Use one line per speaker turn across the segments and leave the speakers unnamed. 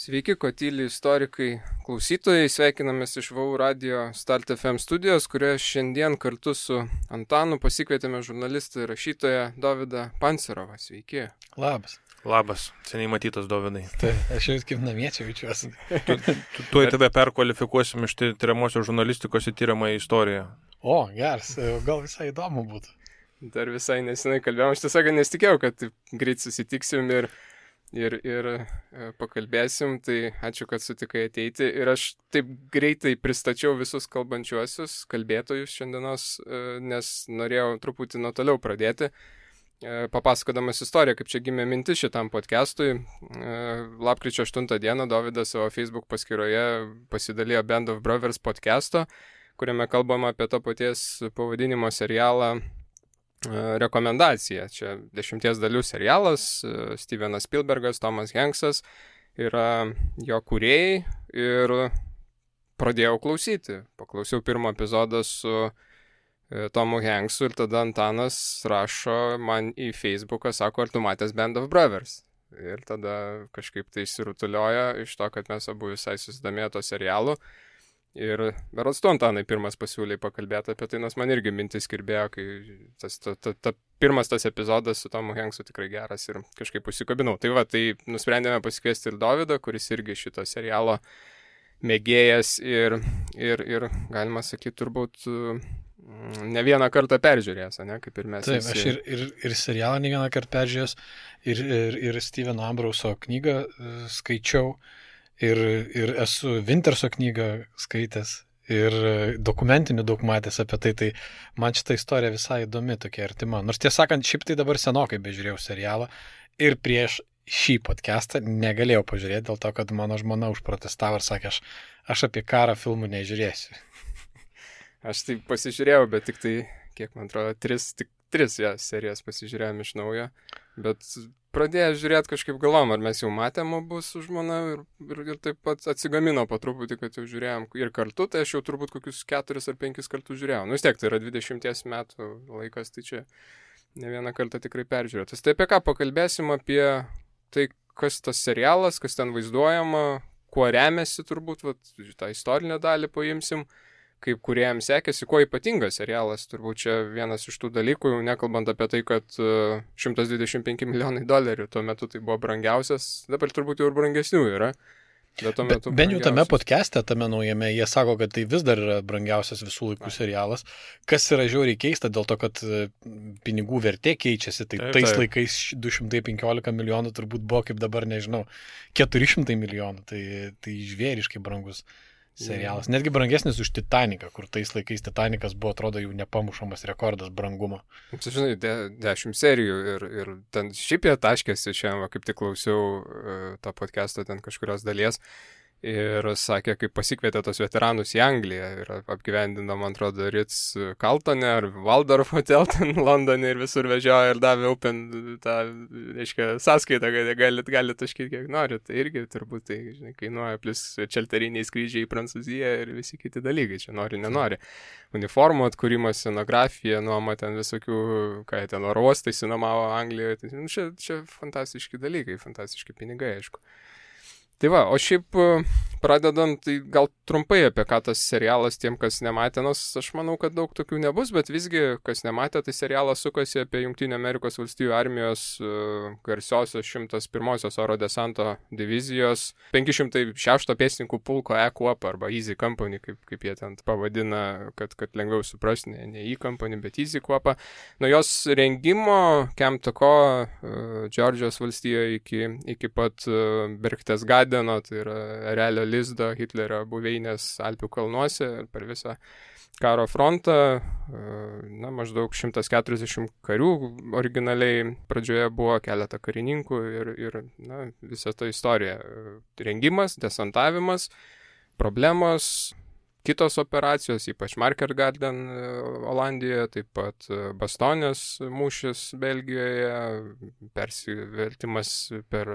Sveiki, Kotyli istorikai klausytojai, sveikinamės iš VAU radio Start FM studijos, kurioje šiandien kartu su Antanu pasikvietėme žurnalistą ir rašytoją Dovydą Pancerovą. Sveiki.
Labas.
Labas, seniai matytas Dovydai.
Tai aš jau kaip namiečiai jaučiuosi.
Tuoj tave perkvalifikuosim iš tyriamosios žurnalistikos į tyriamąją istoriją.
O, geras, gal visai įdomu būtų.
Dar visai nesenai kalbėjom, aš tiesiog nesitikėjau, kad greit susitiksim ir pakalbėsim, tai ačiū, kad sutikai ateiti. Ir aš taip greitai pristačiau visus kalbančiuosius, kalbėtojus šiandienos, nes norėjau truputį nuo toliau pradėti, papasakodamas istoriją, kaip čia gimė mintis šitam podcastui. Lapkričio 8 dieną Dovydas savo Facebook paskyroje pasidalijo Band of Brothers podcasto, kuriame kalbama apie to paties pavadinimo serialą Rekomendacija. Čia 10 dalių serialas, Stevenas Spielbergas, Tomas Hanksas yra jo kūrėjai ir pradėjau klausyti. Paklausiau pirmą epizodą su Tomu Hanksu ir tada Antanas rašo man į Facebooką, sako, ar tu matęs Band of Brothers? Ir tada kažkaip tai išsirutuliojo iš to, kad mes abu visai susidomėjo to serialu. Ir berods tu, Antanai, pirmas pasiūlė pakalbėti apie tai, nes man irgi mintis kirbėjo, kai pirmas tas epizodas su Tomu Hanksu tikrai geras ir kažkaip užsikabinau. Tai va, tai nusprendėme pasikviesti ir Dovydą, kuris irgi šito serialo mėgėjas ir galima sakyti, turbūt ne vieną kartą peržiūrėjęs, ne, kaip ir mes.
Taip, aš ir serialą ne vieną kartą peržiūrėjęs, ir Steveno Ambrauso knygą skaičiau. Ir esu Winterso knygą skaitęs ir dokumentinių daug matęs apie tai, tai man šitą istoriją visai įdomi, tokia artima. Nors tiesą sakant, šiaip tai dabar senokai bežiūrėjau serialą ir prieš šį podcastą negalėjau pažiūrėti dėl to, kad mano žmona užprotestavo ir sakė, aš apie karą filmų nežiūrėsiu.
Aš tai pasižiūrėjau, bet tik tai, kiek man atrodo, tris serijas pasižiūrėjom iš naujo, bet pradėjau žiūrėti kažkaip galvom, ar mes jau matėm abu su žmona ir taip pat atsigamino po truputį, kad jau žiūrėjom ir kartu, tai aš jau turbūt kokius 4 ar 5 kartus žiūrėjau. Nu vis tiek, tai yra 20 metų laikas, tai čia ne vieną kartą tikrai peržiūrėtas. Tai apie ką pakalbėsim, apie tai, kas tas serialas, kas ten vaizduojama, kuo remiasi turbūt, tą istorinę dalį paimsim, kaip kūrėjams sekėsi, kuo ypatingas serialas, turbūt čia vienas iš tų dalykų, nekalbant apie tai, kad $125 milijonai tuo metu tai buvo brangiausias, dabar turbūt jau ir brangesnių yra.
Bent jau tame podcast'e, tame naujame, jie sako, kad tai vis dar yra brangiausias visų laikų serialas, kas yra žiauriai keista dėl to, kad pinigų vertė keičiasi, tai tais laikais 215 milijonų turbūt buvo kaip dabar, nežinau, 400 milijonų, tai žvėriškai brangus serialas. Netgi brangesnis už Titaniką, kur tais laikais Titanikas buvo, atrodo, jau nepamušamas rekordas brangumo.
Tu žinai, 10 serijų ir ten šiaip jie taškėsi šiandien, kaip tik klausiau tą podcastą ten kažkurios dalies ir sakė, kaip pasikvietė tos veteranus į Angliją ir apgyvendino, man atrodo, Ritz Carltone ar Waldorf Hotel ten Londone ir visur vežiojo ir davė Open tą, reiškia, sąskaitą, kad galit taškyti kiek norit. Tai irgi turbūt tai, žinai, kainuoja, plus čelteriniai skrydžiai į Prancūziją ir visi kiti dalykai, čia nori, nenori. Uniformų atkūrimas, scenografija, nuoma ten visokių, ką jie ten oro uostai sinomavo Anglijoje. Tai, čia fantastiški dalykai, fantastiški pinigai, aišku. Tai va, o šiaip pradedant, tai gal trumpai apie ką tas serialas tiem, kas nematė, nors aš manau, kad daug tokių nebus, bet visgi, kas nematė, tai serialas sukasi apie Jungtinių Amerikos valstijų armijos garsiosios 101-osios oro desanto divizijos 506 pėstininkų pulko E-Kuopą arba Easy Company, kaip jie ten pavadina, kad lengviau suprasti, ne E-Company, bet Easy Kuopą. Nuo jos rengimo Camp Taco, Džordžijos valstijoje iki pat Berchtesgadeno, tai yra Erelio lizdo Hitlerio buveinės Alpių kalnuose ir per visą karo frontą, maždaug 140 karių originaliai pradžioje buvo, keletą karininkų ir visa ta istorija. Rengimas, desantavimas, problemos, kitos operacijos, ypač Market Garden Olandijoje, taip pat Bastonės mūšis Belgijoje, persivertimas per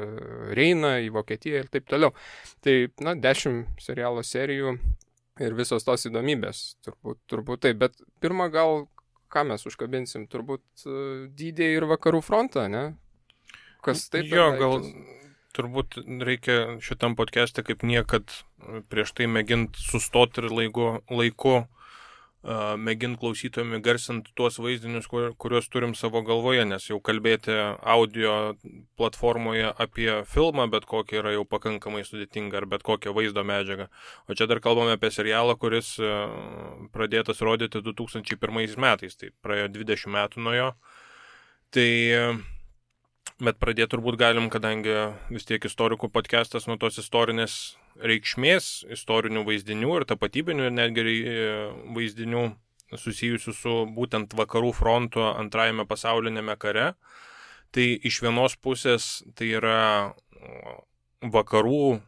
Reiną į Vokietiją ir taip toliau. Tai, 10 serialo serijų ir visos tos įdomybės, turbūt taip. Bet pirmą gal, ką mes užkabinsim, turbūt dydį ir vakarų frontą, ne? Kas taip?
Jo, gal Turbūt reikia šitam podcast'e kaip niekad prieš tai mėgint sustoti ir laiku mėgint klausytojami garsinti tuos vaizdinius, kuriuos turim savo galvoje, nes jau kalbėti audio platformoje apie filmą, bet kokį yra jau pakankamai sudėtinga, ar bet kokią vaizdo medžiagą. O čia dar kalbame apie serialą, kuris pradėtas rodyti 2001 metais, tai praėjo 20 metų nuo jo. Tai, bet pradėti turbūt galim, kadangi vis tiek istorikų podcastas nuo tos istorinės reikšmės, istorinių vaizdinių ir tapatybinių netgi vaizdinių susijusių su būtent vakarų fronto antrajame pasaulinėme kare. Tai iš vienos pusės tai yra vakarų,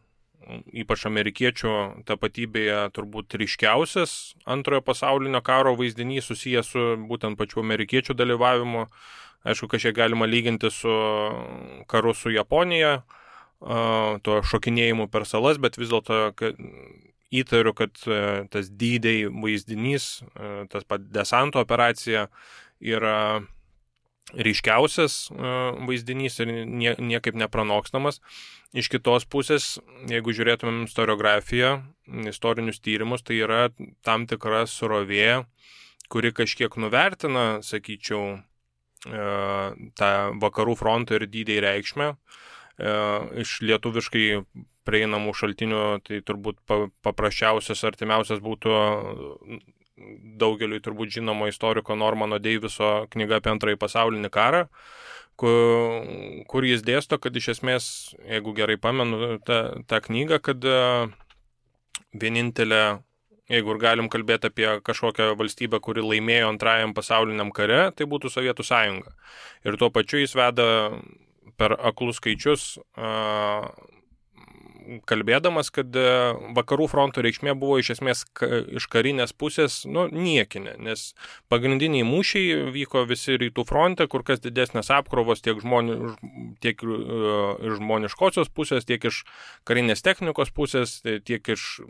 ypač amerikiečių tapatybėje turbūt ryškiausias antrojo pasaulinio karo vaizdinys susijęs su būtent pačiu amerikiečių dalyvavimu. Aišku, kažkiek galima lyginti su karu su Japonija, to šokinėjimu per salas, bet vis dėlto įtariu, kad tas D-Day vaizdinys, tas pat desanto operacija yra ryškiausias vaizdinys ir niekaip nepranokstamas. Iš kitos pusės, jeigu žiūrėtumėm istoriografiją, istorinius tyrimus, tai yra tam tikra srovė, kuri kažkiek nuvertina, sakyčiau, tą vakarų fronto ir D-Day reikšmę. Iš lietuviškai prieinamų šaltinių, tai turbūt paprasčiausias, artimiausias būtų daugeliui turbūt žinomo istoriko Normano Deiviso knyga apie antrąjį pasaulinį karą, kur jis dėsto, kad iš esmės, jeigu gerai pamenu tą knygą, kad vienintelė, jeigu ir galim kalbėti apie kažkokią valstybę, kuri laimėjo antrajam pasauliniam kare, tai būtų Sovietų sąjunga. Ir tuo pačiu jis veda per aklus skaičius, kalbėdamas, kad vakarų fronto reikšmė buvo iš esmės iš karinės pusės niekinė, nes pagrindiniai mūšiai vyko visi rytų fronte, kur kas didesnės apkrovos tiek iš žmoniškosios pusės, tiek iš karinės technikos pusės, tiek iš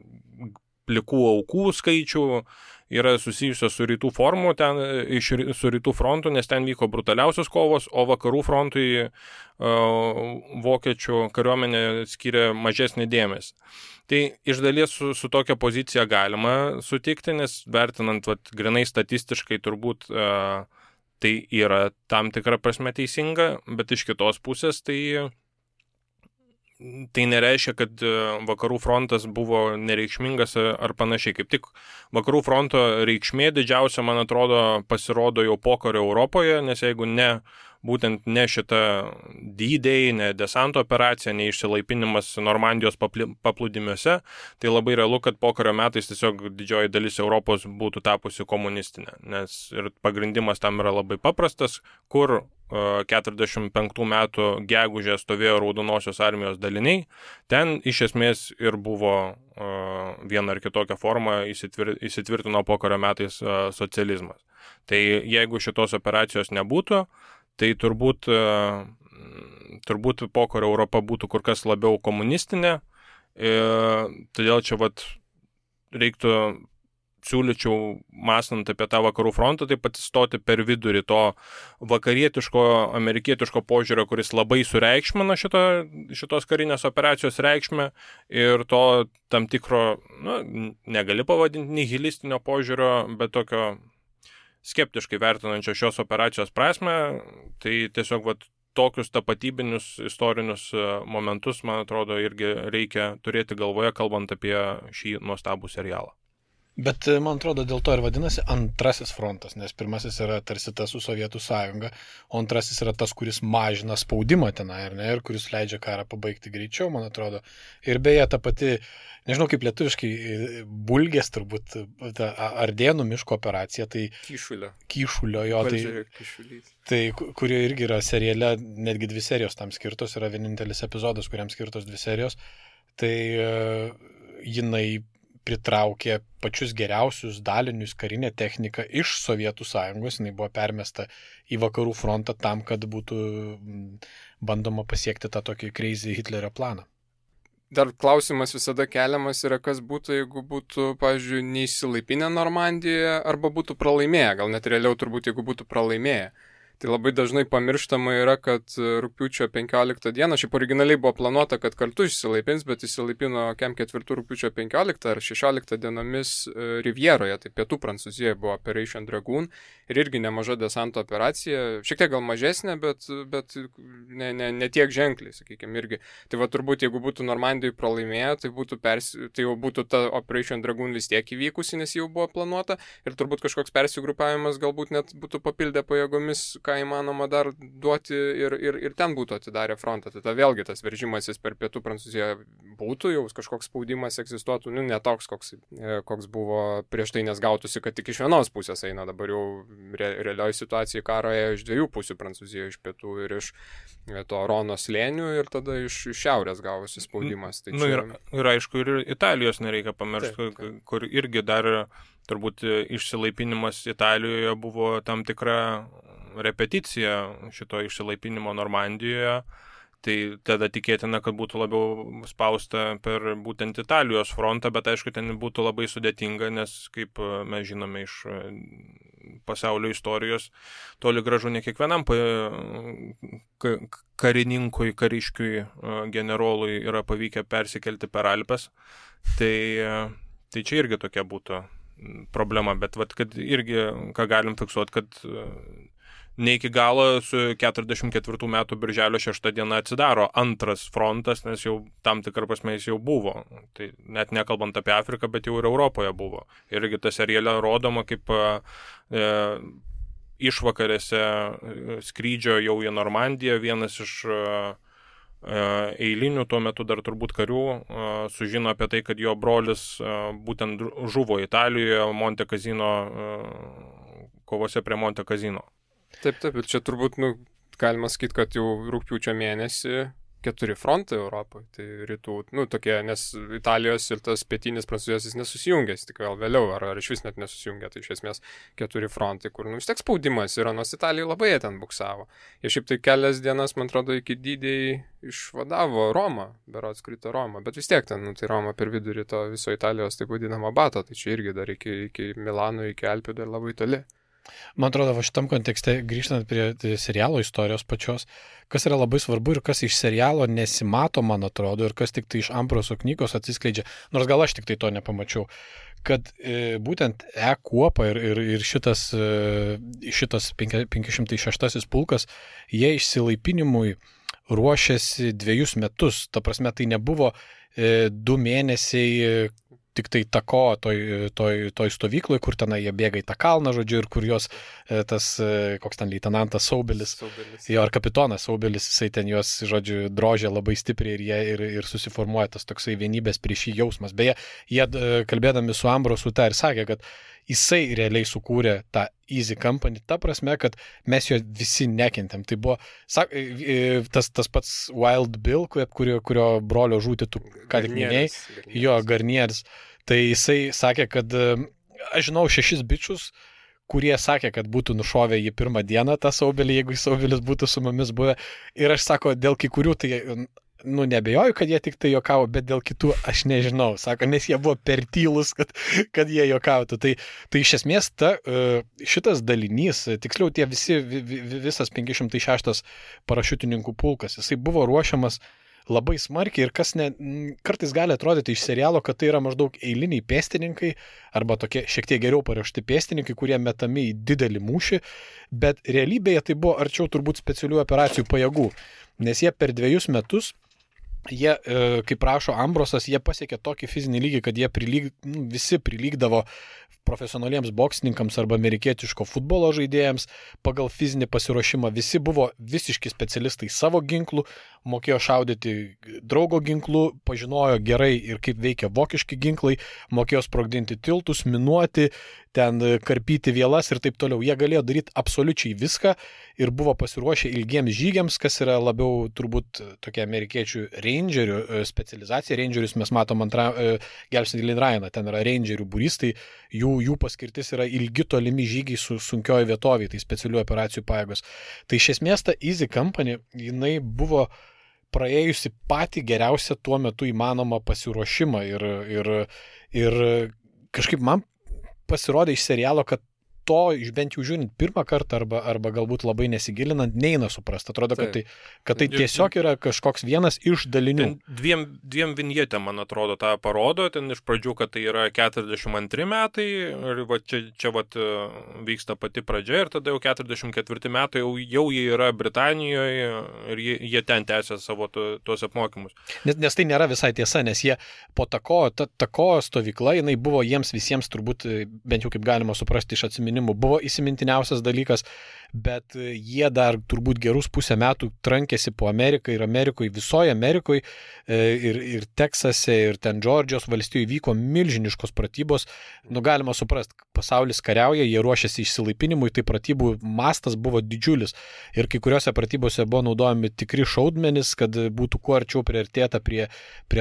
plikų aukų skaičių yra susijusios su rytų su rytų frontu, nes ten vyko brutaliausios kovos, o vakarų frontui vokiečių kariuomenė skiria mažesnį dėmesį. Tai iš dalies su tokia pozicija galima sutikti, nes vertinant grinai statistiškai turbūt tai yra tam tikra prasme teisinga, bet iš kitos pusės tai nereiškia, kad vakarų frontas buvo nereikšmingas ar panašiai. Kaip tik vakarų fronto reikšmė didžiausia, man atrodo, pasirodo jau pokario Europoje, nes jeigu būtent ne šita D-Day, ne desanto operacija, ne išsilaipinimas Normandijos paplūdimiuose, tai labai realu, kad pokario metais tiesiog didžioji dalis Europos būtų tapusi komunistinė, nes ir pagrindimas tam yra labai paprastas, kur 45 metų gegužę stovėjo Raudonosios armijos daliniai, ten iš esmės ir buvo viena ar kitokia forma įsitvirtino pokario metais socializmas. Tai jeigu šitos operacijos nebūtų, tai turbūt pokario Europa būtų kur kas labiau komunistinė, todėl čia reiktų siūlyčiau, mąstant apie tą vakarų frontą, taip pat stoti per vidurį to vakarietiško, amerikietiško požiūrio, kuris labai sureikšmina šitos karinės operacijos reikšmę ir to tam tikro, negali pavadinti nihilistinio požiūrio, bet tokio skeptiškai vertinančio šios operacijos prasme, tai tiesiog tokius tapatybinius istorinius momentus, man atrodo, irgi reikia turėti galvoje, kalbant apie šį nuostabų serialą.
Bet, man atrodo, dėl to ir vadinasi antrasis frontas, nes pirmasis yra tarsi tas su Sovietų sąjunga, o antrasis yra tas, kuris mažina spaudimą tenai, ir kuris leidžia karą pabaigti greičiau, man atrodo. Ir beje, ta pati, nežinau kaip lietuviškai, Bulgės turbūt, ta Ardėnų miško operacija, tai Kyšulio jo, tai kurio irgi yra seriale, netgi 2 serijos tam skirtos, yra vienintelis epizodas, kuriam skirtos 2 serijos, tai jinai pritraukė pačius geriausius dalinius, karinę techniką iš Sovietų sąjungos, jinai buvo permesta į vakarų frontą tam, kad būtų bandoma pasiekti tą tokį crazy Hitlerio planą.
Dar klausimas visada keliamas yra, kas būtų, jeigu būtų, pavyzdžiui, neįsilaipinę Normandijoje arba būtų pralaimėję, gal net realiau turbūt, jeigu būtų pralaimėję. Tai labai dažnai pamirštama yra, kad rugpjūčio 15 dieną, šiaip originaliai buvo planuota, kad kartu išsilaipins, bet išsilaipino kem 4 rugpjūčio 15 ar 16 dienomis Rivjeroje, tai pietų Prancūzijoje buvo Operation Dragoon ir irgi nemaža desanto operacija, šiek tiek gal mažesnė, bet ne tiek ženkliai, sakykime, irgi. Tai va turbūt, jeigu būtų Normandijai pralaimėję, tai jau būtų ta Operation Dragoon vis tiek įvykusi, nes jau buvo planuota ir turbūt kažkoks persigrupavimas galbūt net būtų papildę pajėgomis, ką įmanoma dar duoti ir ten būtų atidarę frontą. Tai vėlgi tas veržimasis per pietų Prancūziją būtų, jau kažkoks spaudimas egzistuotų, ne toks, koks buvo prieš tai, nes gautųsi, kad tik iš vienos pusės eina, dabar jau realioji situacija karo ėjo iš dviejų pusių Prancūzijoje, iš pietų ir iš to Rono slėnių ir tada iš šiaurės gavosi spaudimas. Tai čia...
ir aišku, ir Italijos nereikia pamiršti, kur irgi dar turbūt išsilaipinimas Italijoje buvo tam tikra repeticija šito išsilaipinimo Normandijoje, tai tada tikėtina, kad būtų labiau spausta per būtent Italijos frontą, bet aišku, ten būtų labai sudėtinga, nes kaip mes žinome iš pasaulio istorijos, toli gražu ne kiekvienam karininkui, kariškiui, generolui yra pavykę persikelti per Alpes, tai čia irgi tokia būtų problema, bet kad irgi, ką galim fiksuoti, kad ne iki galo su 44 metų birželio 6 diena atsidaro antras frontas, nes jau tam tikrą prasme jis jau buvo. Tai net nekalbant apie Afriką, bet jau ir Europoje buvo. Irgi ta seriale rodoma, kaip išvakarėse skrydžio jau į Normandiją vienas iš eilinių tuo metu dar turbūt karių sužino apie tai, kad jo brolis būtent žuvo Italijoje Monte Cassino kovose prie Monte Cassino.
Taip, ir čia turbūt, galima sakyti, kad jau rugpjūčio mėnesį 4 frontai Europoje, tai rytų, tokie, nes Italijos ir tas pietinis Prancūzijos jis nesusijungęs, tik vėl vėliau, ar iš vis net nesusijungė, tai iš esmės 4 frontai, kur, vis tiek spaudimas yra, nors Italija labai ten buksavo. Jie šiaip tai kelias dienas, man atrodo, iki Dydėjai išvadavo Romą, berods krito Romą, bet vis tiek ten, tai Roma per vidurį to viso Italijos, taip vadinamo bato, tai čia irgi dar iki Milano, iki Alpių dar labai toli.
Man atrodo, va šitam kontekste, grįžtant prie serialo istorijos pačios, kas yra labai svarbu ir kas iš serialo nesimato, man atrodo, ir kas tik tai iš Ambroso knygos atsiskleidžia, nors gal aš tik tai to nepamačiau, kad būtent kuopa ir šitas 506 pulkas, jie išsilaipinimui ruošėsi 2 metus, ta prasme tai nebuvo 2 mėnesiai tik tai tako toj stovykloj, kur tenai jie bėga į tą kalną, žodžiu, ir kur jos tas, koks ten leitenantas Saubelis, jo, ar kapitonas Saubelis, jisai ten juos, žodžiu, drožė labai stipriai ir jie ir susiformuoja tas toksai vienybės prieš jį jausmas. Beje, jie kalbėdami su Ambrosu tą ir sakė, kad jisai realiai sukūrė tą Easy Company, ta prasme, kad mes jo visi nekentėm. Tai buvo tas pats Wild Bill, kurio brolio žūtį tu ką tik minėjai, jo, Garnieris. Tai jisai sakė, kad aš žinau 6 bičius, kurie sakė, kad būtų nušovę jį pirmą dieną tą Saubelį, jeigu Saubelis būtų su mumis buvę. Ir aš sako, dėl kai kurių tai nebejoju, kad jie tik tai jokavo, bet dėl kitų aš nežinau, sako, nes jie buvo per tylus, kad jie jokautų. Tai iš esmės šitas dalinys, tiksliau visas 506 parašiutininkų pulkas, jisai buvo ruošiamas labai smarkiai ir kas kartais gali atrodyti iš serialo, kad tai yra maždaug eiliniai pėstininkai arba tokie šiek tiek geriau paruošti pėstininkai, kurie metami į didelį mūšį, bet realybėje tai buvo arčiau turbūt specialių operacijų pajėgų, nes jie per 2 metus jie, kaip rašo Ambrosas, jie pasiekė tokį fizinį lygį, kad jie visi prilygdavo profesionaliems boksininkams arba amerikietiško futbolo žaidėjams pagal fizinį pasiruošimą. Visi buvo visiški specialistai savo ginklų, mokėjo šaudyti draugo ginklų, pažinojo gerai ir kaip veikia vokiški ginklai, mokėjo sprogdinti tiltus, minuoti, ten karpyti vielas ir taip toliau. Jie galėjo daryti absoliučiai viską ir buvo pasiruošę ilgiems žygiams, kas yra labiau turbūt tokia amerikiečių rangerių specializacija. Rangerius mes matom Gelbstinti Lin Ryaną, ten yra rangerių būrys, tai jų paskirtis yra ilgi tolimi žygiai su sunkioji vietovė, tai specialių operacijų pajėgos. Tai iš esmės ta Easy Company, jinai buvo praėjusi patį geriausią tuo metu įmanomą pasiruošimą ir kažkaip man pasirodė iš serialo, kad to, bent jau žiūrint pirmą kartą arba galbūt labai nesigilinant, neina suprasti. Atrodo, kad tai tiesiog yra kažkoks vienas iš dalinių.
Dviem vinjetėm, man atrodo, tą parodo. Ten iš pradžių, kad tai yra 42 metai ir čia vyksta pati pradžia ir tada jau 44 metai jau jie yra Britanijoje ir jie ten tęsia savo tuos apmokymus.
Nes tai nėra visai tiesa, nes jie po tako stovykla, jinai buvo jiems visiems turbūt, bent jau kaip galima suprasti iš atsiminimų, buvo įsimintiniausias dalykas, bet jie dar turbūt gerus pusę metų trankėsi po Ameriką ir Amerikoje, visoje Amerikoje ir Teksase, ir ten Džordžijos valstijoje vyko milžiniškos pratybos. Galima suprasti, pasaulis kariauja, jie ruošiasi išsilaipinimui, tai pratybų mastas buvo didžiulis. Ir kai kuriuose pratybose buvo naudojami tikri šaudmenys, kad būtų kuo arčiau priartėta prie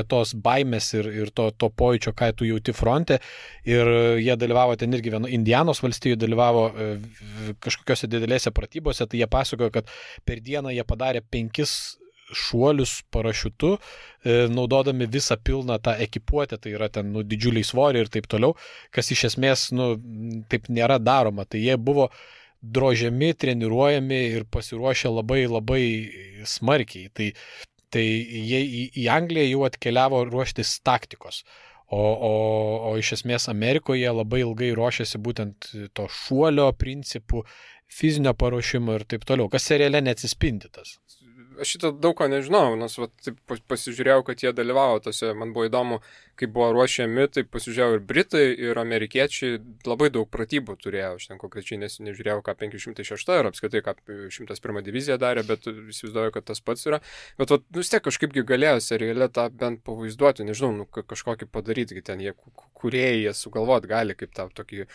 tos baimės ir to pojūčio, ką tu jauti fronte. Ir jie dalyvavo ten irgi Indianos valstijoje dalyvavo kažkokiose didelėse pratybose, tai jie pasakojo, kad per dieną jie padarė 5 šuolius parašiutu, naudodami visą pilną tą ekipuotę, tai yra ten didžiuliai svoriai ir taip toliau, kas iš esmės taip nėra daroma. Tai jie buvo drožiami, treniruojami ir pasiruošę labai labai smarkiai. Tai jie į Angliją jau atkeliavo ruoštis taktikos. O iš esmės Amerikoje labai ilgai ruošiasi būtent to šuolio principų, fizinio paruošimo ir taip toliau, kas seriale neatsispindi tas.
Aš šitą daug ko nežinau, nes pasižiūrėjau, kad jie dalyvavo tose, man buvo įdomu, kaip buvo ruošiami, tai pasižiūrėjau ir Britai, ir amerikiečiai labai daug pratybų turėjo, aš ten konkrečiai nežiūrėjau, ką 506 ir apskaitai, ką 101 divizija darė, bet įsivaizduoju, kad tas pats yra. Bet vis tiek kažkaipgi galėjo seriale tą bent pavaizduoti, nežinau, kažkokį padaryti, ten jie kūrėjai sugalvot gali kaip tą tokį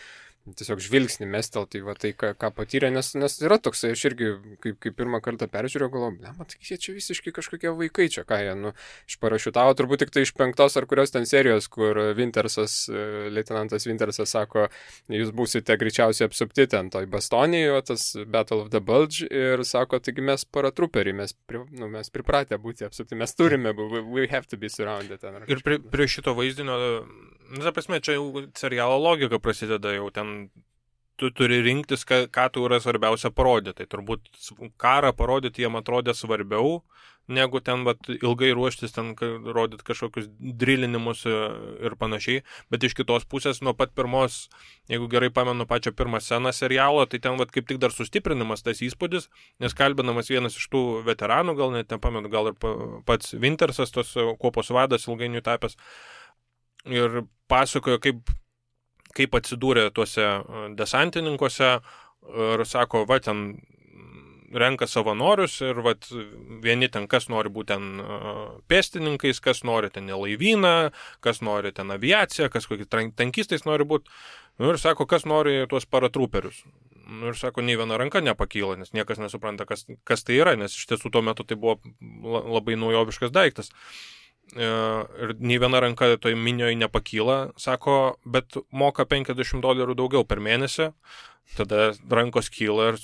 tiesiog žvilgsnį mestelti, tai ką patyrė, nes yra toksai, aš irgi, kaip pirmą kartą peržiūrėjau, galvoju, matai, jie čia visiškai kažkokie vaikai čia, ką jie, išparašiutavo, turbūt tik tai iš 5 ar kurios ten serijos, kur leitenantas Wintersas sako, jūs būsite greičiausiai apsupti ten toj Bastonijoje, tas Battle of the Bulge, ir sako, taigi mes paratruperiai, mes pripratę būti apsupti, mes turime, we have to be surrounded.
Ir prie šito vaizdinio, ta prasme, čia jau serialo logika prasideda, jau ten tu turi rinktis, ką tu yra svarbiausia parodyti. Tai turbūt karą parodyti jiem atrodė svarbiau, negu ten ilgai ruoštis, ten rodyti kažkokius drillinimus ir panašiai. Bet iš kitos pusės, nuo pat pirmos, jeigu gerai pamenu pačią pirmą sceną serialo, tai ten kaip tik dar sustiprinimas tas įspūdis, nes kalbinamas vienas iš tų veteranų, gal net nepamenu, gal ir pats Wintersas, tos kuopos vadas ilgainiui tapęs, ir pasakojo, kaip atsidūrė tuose desantininkuose ir sako, ten renka savanorius ir vieni ten kas nori būti ten pėstininkais, kas nori ten laivyną, kas nori ten aviaciją, kas kokį tankistais nori būti. Ir sako, kas nori tuos paratruperius. Ir sako, nei viena ranka nepakyla, nes niekas nesupranta, kas tai yra, nes iš tiesų tuo metu tai buvo labai naujoviškas daiktas. Ir nei viena ranka toj minioje nepakyla, sako, bet moka $50 daugiau per mėnesį, tada rankos kyla ir,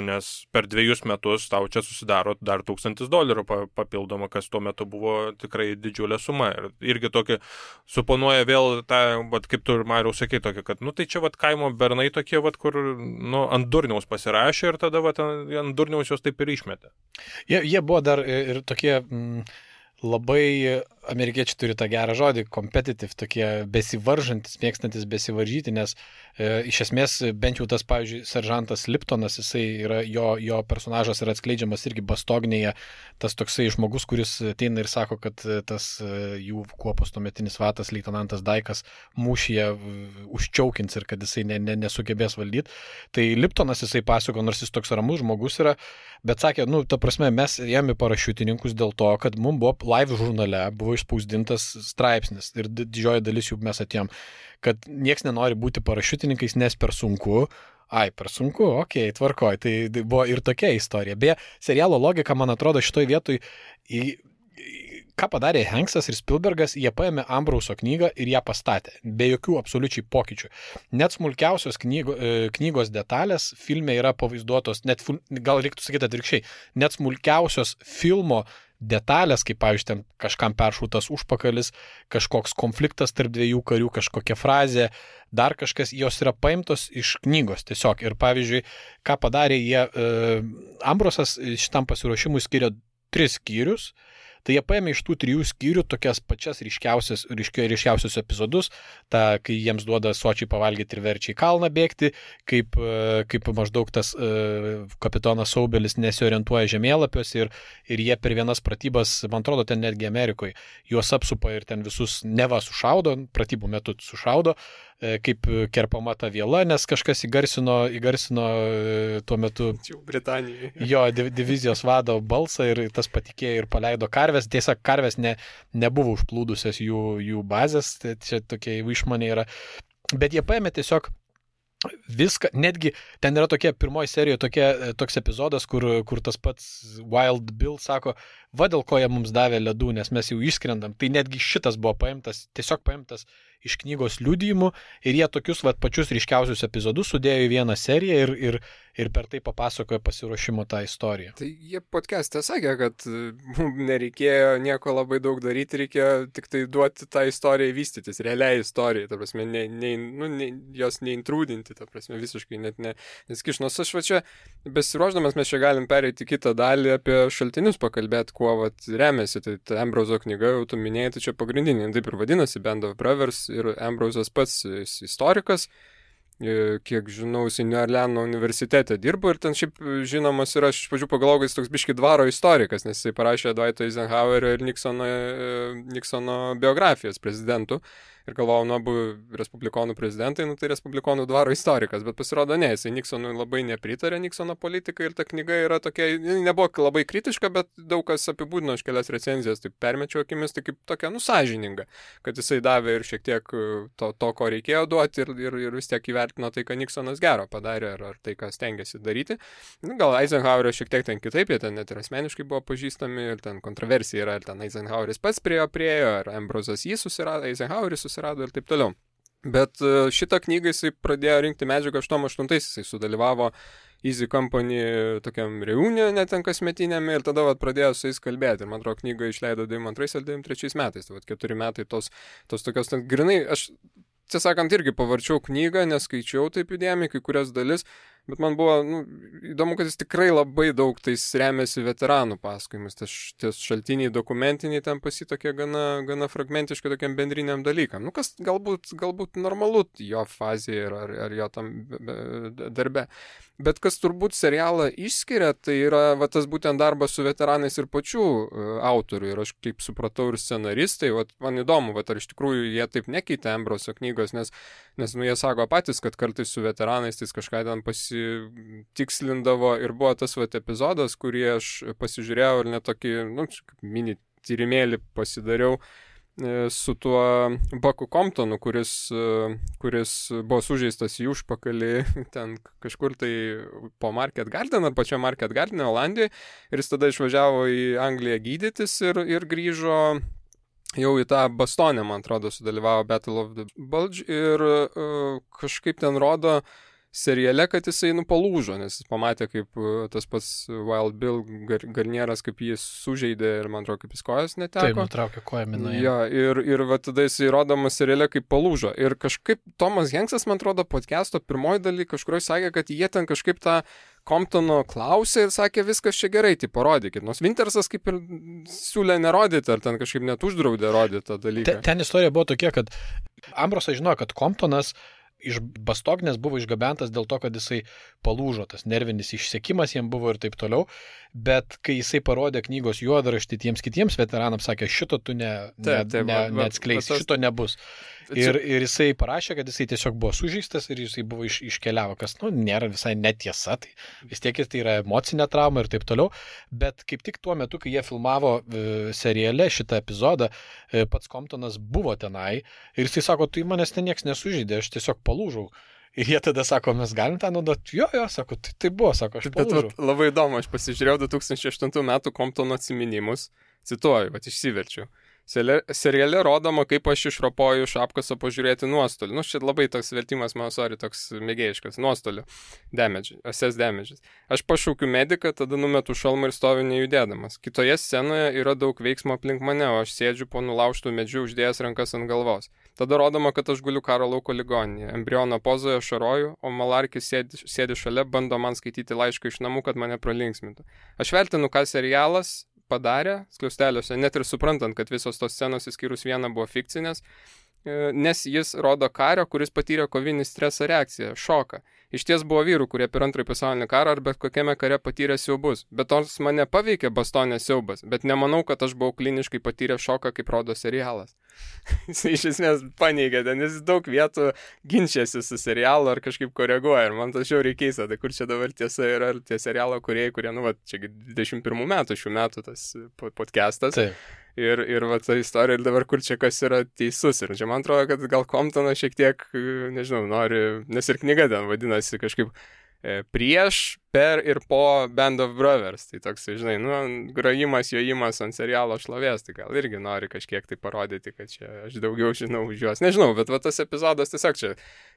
nes per 2 metus tau čia susidaro dar $1000 papildoma, kas tuo metu buvo tikrai didžiulė suma. Ir irgi tokį suponuoja vėl tą, kaip tu ir Mariau sakei, tokį, kad, tai čia kaimo bernai tokie, kur, ant durniaus pasirašė ir tada, ant durniaus jos taip ir išmetė.
Jie buvo dar ir tokie... Labai amerikiečiai turi tą gerą žodį, competitive, tokie besivaržantis, mėgstantis besivaržyti, nes iš esmės bent jau tas, pavyzdžiui, seržantas Liptonas, jisai yra, jo personažas yra atskleidžiamas irgi Bastognėje, tas toksai žmogus, kuris ateina ir sako, kad tas jų kuopos tuometinis vadas, leitenantas Daikas, mūšyje užčiaukins ir kad jisai nesugebės valdyti. Tai Liptonas jisai pasako, nors jis toks ramus žmogus yra, bet sakė, ta prasme, mes ėjome parašiutininkus dėl to, kad mums buvo live žurnale, buvo išspausdintas straipsnis ir didžioji dalis jų mes atėjom, kad nieks nenori būti parašiutininkais, nes per sunku. Per sunku, okei, tvarkoj. Tai buvo ir tokia istorija. Beje, serialo logika, man atrodo, šitoj vietoj, ką padarė Hanksas ir Spielbergas, jie paėmė Ambrauso knygą ir ją pastatė, be jokių absoliučiai pokyčių. Net smulkiausios knygos detalės filme yra pavaizduotos, gal reiktų sakyti atvirkščiai, net smulkiausios filmo detalės, kaip, pavyzdžiui, ten kažkam peršautas užpakalis, kažkoks konfliktas tarp dviejų karių, kažkokia frazė, dar kažkas, jos yra paimtos iš knygos tiesiog. Ir, pavyzdžiui, ką padarė jie, Ambrosas šitam pasiruošimui skiria 3 skyrius. Tai jie paėmė iš tų 3 skyrių tokias pačias ryškiausius epizodus, kai jiems duoda sočiai pavalgyti ir verčia į kalną bėgti, kaip maždaug tas kapitonas Saubelis nesiorientuoja žemėlapiuose ir jie per vienas pratybas, man atrodo, ten netgi Amerikoje, juos apsupa ir ten visus neva sušaudo, pratybų metu sušaudo, kaip kerpama ta viela, nes kažkas įgarsino tuo metu
Britanijoje.
Jo divizijos vado balsą ir tas patikėjo ir paleido karves. Tiesa, karves nebuvo užplūdusios jų bazės, tai čia tokie išmaniai yra. Bet jie paėmė tiesiog viską, netgi ten yra tokia pirmoji serijoje toks epizodas, kur tas pats Wild Bill sako, va dėl ko jie mums davė ledų, nes mes jau išskrendam. Tai netgi šitas buvo tiesiog paimtas iš knygos liudijimų ir jie tokius pačius ryškiausius epizodus sudėjo į vieną seriją ir per tai papasakojo pasiruošimo tą istoriją.
Tai jie podcast'e sakė, kad mums nereikėjo nieko labai daug daryti, reikėjo tik tai duoti tą istoriją vystytis, realiai istorijai, ta prasme, jos neintrūdinti, ta prasme, visiškai net neskiš. Nors aš čia, besiruošdamas, mes čia galim pereiti kitą dalį apie šaltinius pakalbėti, kuo remiasi. Tai Ambroso knyga, jau tu minėjai, tai čia pagrindinė, taip ir vadinasi, Band of Brothers, ir Ambrosas pats istorikas. Kiek žinau, jis New Orleano universitete dirbo ir ten šiaip žinomas yra, aš iš pradžių pagalvojau, jis toks biški dvaro istorikas, nes jisai parašė Dwighto Eisenhowerio ir Nixono biografijas prezidentų. Ir galvojau, abu respublikonų prezidentai, tai respublikonų dvaro istorikas, bet pasirodo ne, jisai Nixonui labai nepritarė Nixono politikai ir ta knyga yra tokia, nebuvo labai kritiška, bet daug kas apibūdino iš kelias recenzijas, taip permečiau akimis, tai kaip tokia sąžininga, kad jisai davė ir šiek tiek to ko reikėjo duoti ir vis tiek įvertino tai, ką Nixonas gero padarė ar tai, ką stengiasi daryti. Gal Eisenhowerio šiek tiek ten kitaip, jie ten net ir asmeniškai buvo pažįstami ir ten kontroversija yra, ir ten Eisenhoweris pats priejo, ar Ambrosas jį susirado, Eisenhoweris susirado ir taip toliau. Bet šitą knygą jisai pradėjo rinkti medžiagą 88-ais, jisai sudalyvavo Easy Company tokiam reunione ten kasmetiniame ir tada pradėjo su jais kalbėti. Ir man atrodo, knygą išleido 92 ar 93 metais, tai 4 metai tos tokios, grinai, aš tiesąkant irgi pavarčiau knygą, neskaičiau taip įdėmiai kai kurias dalis, bet man buvo įdomu, kad jis tikrai labai daug tais remiasi veteranų pasakojimus, ties šaltiniai dokumentiniai ten pasitokie gana fragmentiškai tokiam bendriniam dalykam. Kas galbūt normalu jo fazėje ar jo tam darbe. Bet kas turbūt serialą išskiria, tai yra tas būtent darbas su veteranais ir pačių autorių. Ir aš kaip supratau ir scenaristai, man įdomu, ar iš tikrųjų jie taip nekeitė Ambroso knygos, nes jie sako patys, kad kartais su veteranais tai kažką ten pasitikslindavo ir buvo tas epizodas, kurį aš pasižiūrėjau ir net tokį, mini tyrimėlį pasidariau su tuo Bucku Comptonu, kuris buvo sužeistas į užpakalį ten kažkur tai po Market Garden ar pačio Market Garden Olandijoje ir jis tada išvažiavo į Angliją gydytis ir grįžo jau į tą Bastonę, man atrodo, sudalyvavo Battle of the Bulge ir kažkaip ten rodo seriale, kad jisai palūžo, nes jis pamatė, kaip tas pats Wild Bill Garnieras, kaip jis sužeidė ir, man atrodo, kaip jis kojas neteko.
Taip, nutraukė koją minaje.
Ja, ir tada jisai rodomas seriale, kaip palūžo. Ir kažkaip Tomas Hanksas, man atrodo, podcast'o pirmoji daly kažkurioje sakė, kad jie ten kažkaip tą Comptono klausė ir sakė, viskas čia gerai, tai parodykit. Nors Wintersas kaip ir siūlė nerodyti, ar ten kažkaip net uždraudė rodyti tą dalyką.
Ten istorija buvo tokia, kad Ambrosas žinojo, kad Comptonas iš Bastognės buvo išgabentas dėl to, kad jisai palūžo, tas nervinis išsekimas jam buvo ir taip toliau, bet kai jisai parodė knygos juodraštį tiems kitiems veteranams, sakė, šito tu neatskleisi, šito nebus. Ir jisai parašė, kad jisai tiesiog buvo sužeistas ir jisai buvo iškeliavo, kas, nėra visai netiesa, tai vis tiek tai yra emocinė trauma ir taip toliau, bet kaip tik tuo metu, kai jie filmavo seriale šitą epizodą, pats Comptonas buvo tenai ir jisai sako, tu manęs ten nieks nesužeidė, aš tiesiog palūžau. Ir jie tada sako, mes galim tą naudoti. Jo, sako, tai buvo, sako, aš palūžau.
Bet labai įdomu, aš pasižiūrėjau 2008 metų Comptono atsiminimus, cituoju, išsiverčiau. Seriale rodoma, kaip aš išropoju iš apkaso pažiūrėti nuostolį. Nu, šit labai toks vertimas, toks mėgėjiškas. Nuostolį. Assess damages. Aš pašaukiu mediką, tada numetu šalmą ir stoviu nejudėdamas. Kitoje scenoje yra daug veiksmo aplink mane, o aš sėdžiu po nulaužtų medžių uždėjęs rankas ant galvos. Tada rodoma, kad aš guliu karo lauko ligoninėje. Embriono pozoje šaroju, o Malarkis sėdi šalia, bando man skaityti laišką iš namų, kad mane pralinksmintų. Aš vertinu, ką serialas padarė skliausteliuose, net ir suprantant, kad visos tos scenos įskyrus vieną buvo fikcinės, nes jis rodo kario, kuris patyrė kovinį stresą reakciją, šoką. Iš ties buvo vyrų, kurie per antrąjį pasaulinį karą ar bet kokiame kare patyrė siaubus. Bet nors mane paveikė bastonės siaubas, bet nemanau, kad aš buvau kliniškai patyrę šoką, kaip rodo serialas. Jis iš esmės paneigė, nes jis daug vietų ginčiasi su serialu ar kažkaip koreguoja. Ir man tas žiauriai keista, tai kur čia dabar tiesa yra tie serialo kūrėjai, kurie, čia 21 metų šių metų tas podcastas.
Taip.
Ir va ta istorija, ir dabar kur čia kas yra teisus. Ir čia man atrodo, kad gal Comptonas šiek tiek, nežinau, nori, nes ir knyga ten vadinasi kažkaip prieš, per ir po Band of Brothers. Tai toks, žinai, grojimas, jojimas ant serialo šlovės, tai gal irgi nori kažkiek tai parodyti, kad čia aš daugiau žinau už juos. Nežinau, bet va tas epizodas tiesiog čia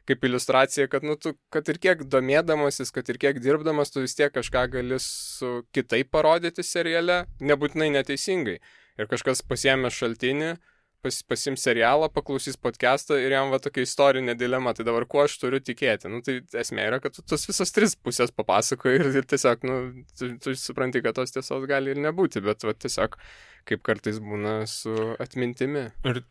kaip iliustracija, kad, tu, kad ir kiek domėdamasis, kad ir kiek dirbdamas, tu vis tiek kažką gali su kitaip parodyti seriale, nebūtinai neteisingai. Ir kažkas pasiėmė šaltinį, pasiims serialą, paklausys podcastą ir jam va tokia istorinė dilema. Tai dabar kuo aš turiu tikėti? Tai esmė yra, kad tu tos visos tris pusės papasakoji ir tiesiog, tu supranti, kad tos tiesos gali ir nebūti, bet va tiesiog kaip kartais būna su atmintimi.
Ir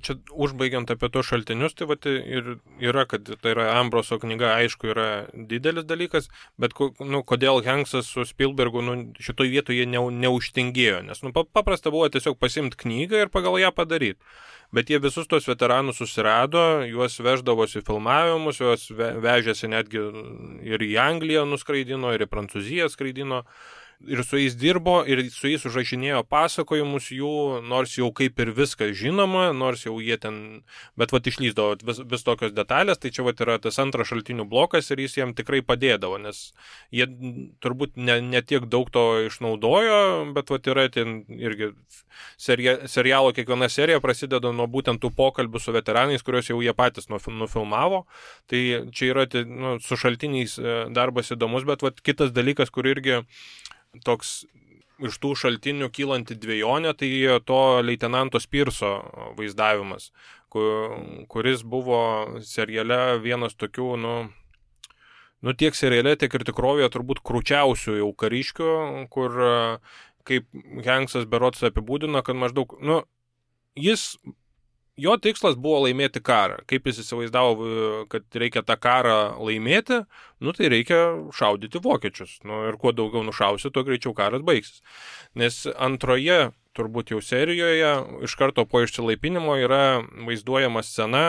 čia užbaigiant apie tos šaltinius, tai vat ir yra, kad tai yra Ambroso knyga, aišku, yra didelis dalykas, bet kodėl Hanksas su Spielbergu šitoj vietoje neužtingėjo, nes paprasta buvo tiesiog pasimti knygą ir pagal ją padaryti. Bet jie visus tos veteranus susirado, juos veždavosi filmavimus, juos vežėsi netgi ir į Angliją nuskraidino, ir į Prancūziją skraidino. Ir su jais dirbo, ir su jais užrašinėjo pasakojimus jų, nors jau kaip ir viskas žinoma, nors jau jie ten, bet išlyzdavo vis tokios detalės, tai čia yra tas antras šaltinių blokas ir jis jiem tikrai padėdavo, nes jie turbūt ne tiek daug to išnaudojo, bet yra ten irgi serialo kiekviena serija prasideda nuo būtent tų pokalbių su veteranais, kuriuos jau jie patys nufilmavo, tai čia yra su šaltiniais darbas įdomus, bet kitas dalykas, kur irgi toks iš tų šaltinių kylanti dvejonė, tai to leitenanto Spirso vaizdavimas, kuris buvo seriale vienas tokių, tiek seriale, tiek ir tikrovėje turbūt krūčiausių jau kariškių, kur kaip Hanksas berods apibūdino, kad maždaug, jo tikslas buvo laimėti karą. Kaip jis įsivaizdavo, kad reikia tą karą laimėti, tai reikia šaudyti vokiečius. Ir kuo daugiau nušausi, tuo greičiau karas baigsis. Nes antroje, turbūt jau serijoje, iš karto po išsilaipinimo yra vaizduojama scena,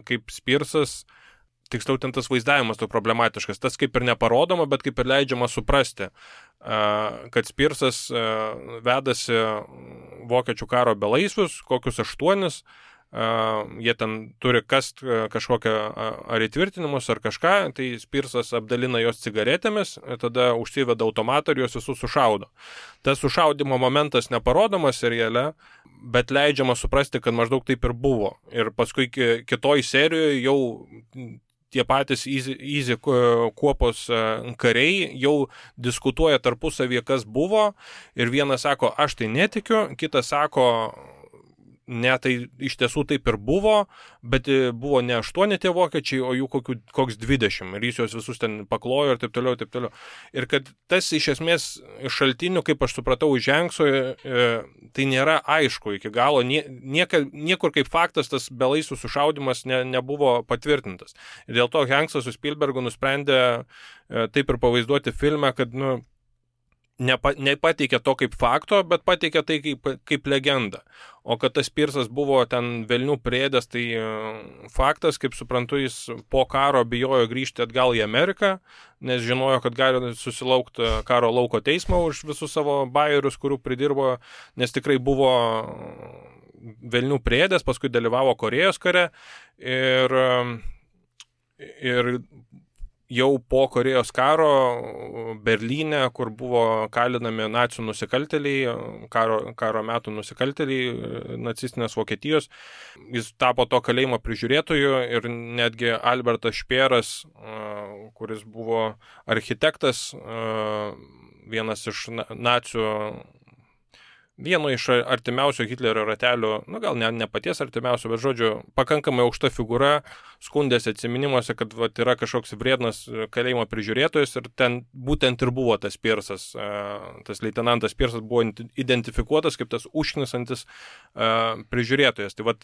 kaip Spirsas, tiksliau ten tas vaizdavimas to problematiškas, tas kaip ir neparodoma, bet kaip ir leidžiama suprasti, kad Spirsas vedasi vokiečių karo belaisvius, kokius 8, jie ten turi kast kažkokią ar įtvirtinimus ar kažką, tai Spirsas apdalina jos cigaretėmis, tada užsiveda automatą ir jos visus sušaudo. Tas sušaudimo momentas neparodomas seriale, bet leidžiama suprasti, kad maždaug taip ir buvo. Ir paskui kitoj serijoje jau tie patys Easy kuopos kariai jau diskutuoja tarpusavyje, kas buvo, ir vienas sako, aš tai netikiu, kitas sako, ne, tai iš tiesų taip ir buvo, bet buvo ne 8 tie vokiečiai, o jų koks 20, ir jis juos visus ten paklojo ir taip toliau, ir taip toliau. Ir kad tas iš esmės šaltinių, kaip aš supratau, iš Hankso, tai nėra aišku iki galo, niekur kaip faktas tas belaisvių sušaudimas nebuvo patvirtintas. Ir dėl to Hanksas su Spielbergu nusprendė taip ir pavaizduoti filme, kad, nepateikė to kaip fakto, bet pateikė tai kaip legendą. O kad tas Spirsas buvo ten velnių priėdęs, tai faktas, kaip suprantu, jis po karo bijojo grįžti atgal į Ameriką, nes žinojo, kad gali susilaukti karo lauko teismo už visus savo bajerius, kurių pridirbo, nes tikrai buvo velnių priėdęs, paskui dalyvavo Korėjos kare ir jau po Korėjos karo Berlyne, kur buvo kalinami nacių nusikaltėliai, karo metų nusikaltėliai nacistinės Vokietijos. Jis tapo to kalėjimo prižiūrėtoju ir netgi Albertas Špėras, kuris buvo architektas, vienas iš nacių, vieno iš artimiausio Hitlerio ratelių, gal ne paties artimiausio, bet žodžiu, pakankamai aukšta figūra, skundėsi atsiminimuose, kad yra kažkoks vriednas kalėjimo prižiūrėtojas ir ten būtent ir buvo tas Pirsas, tas leitenantas Pirsas buvo identifikuotas kaip tas užknisantis prižiūrėtojas. Tai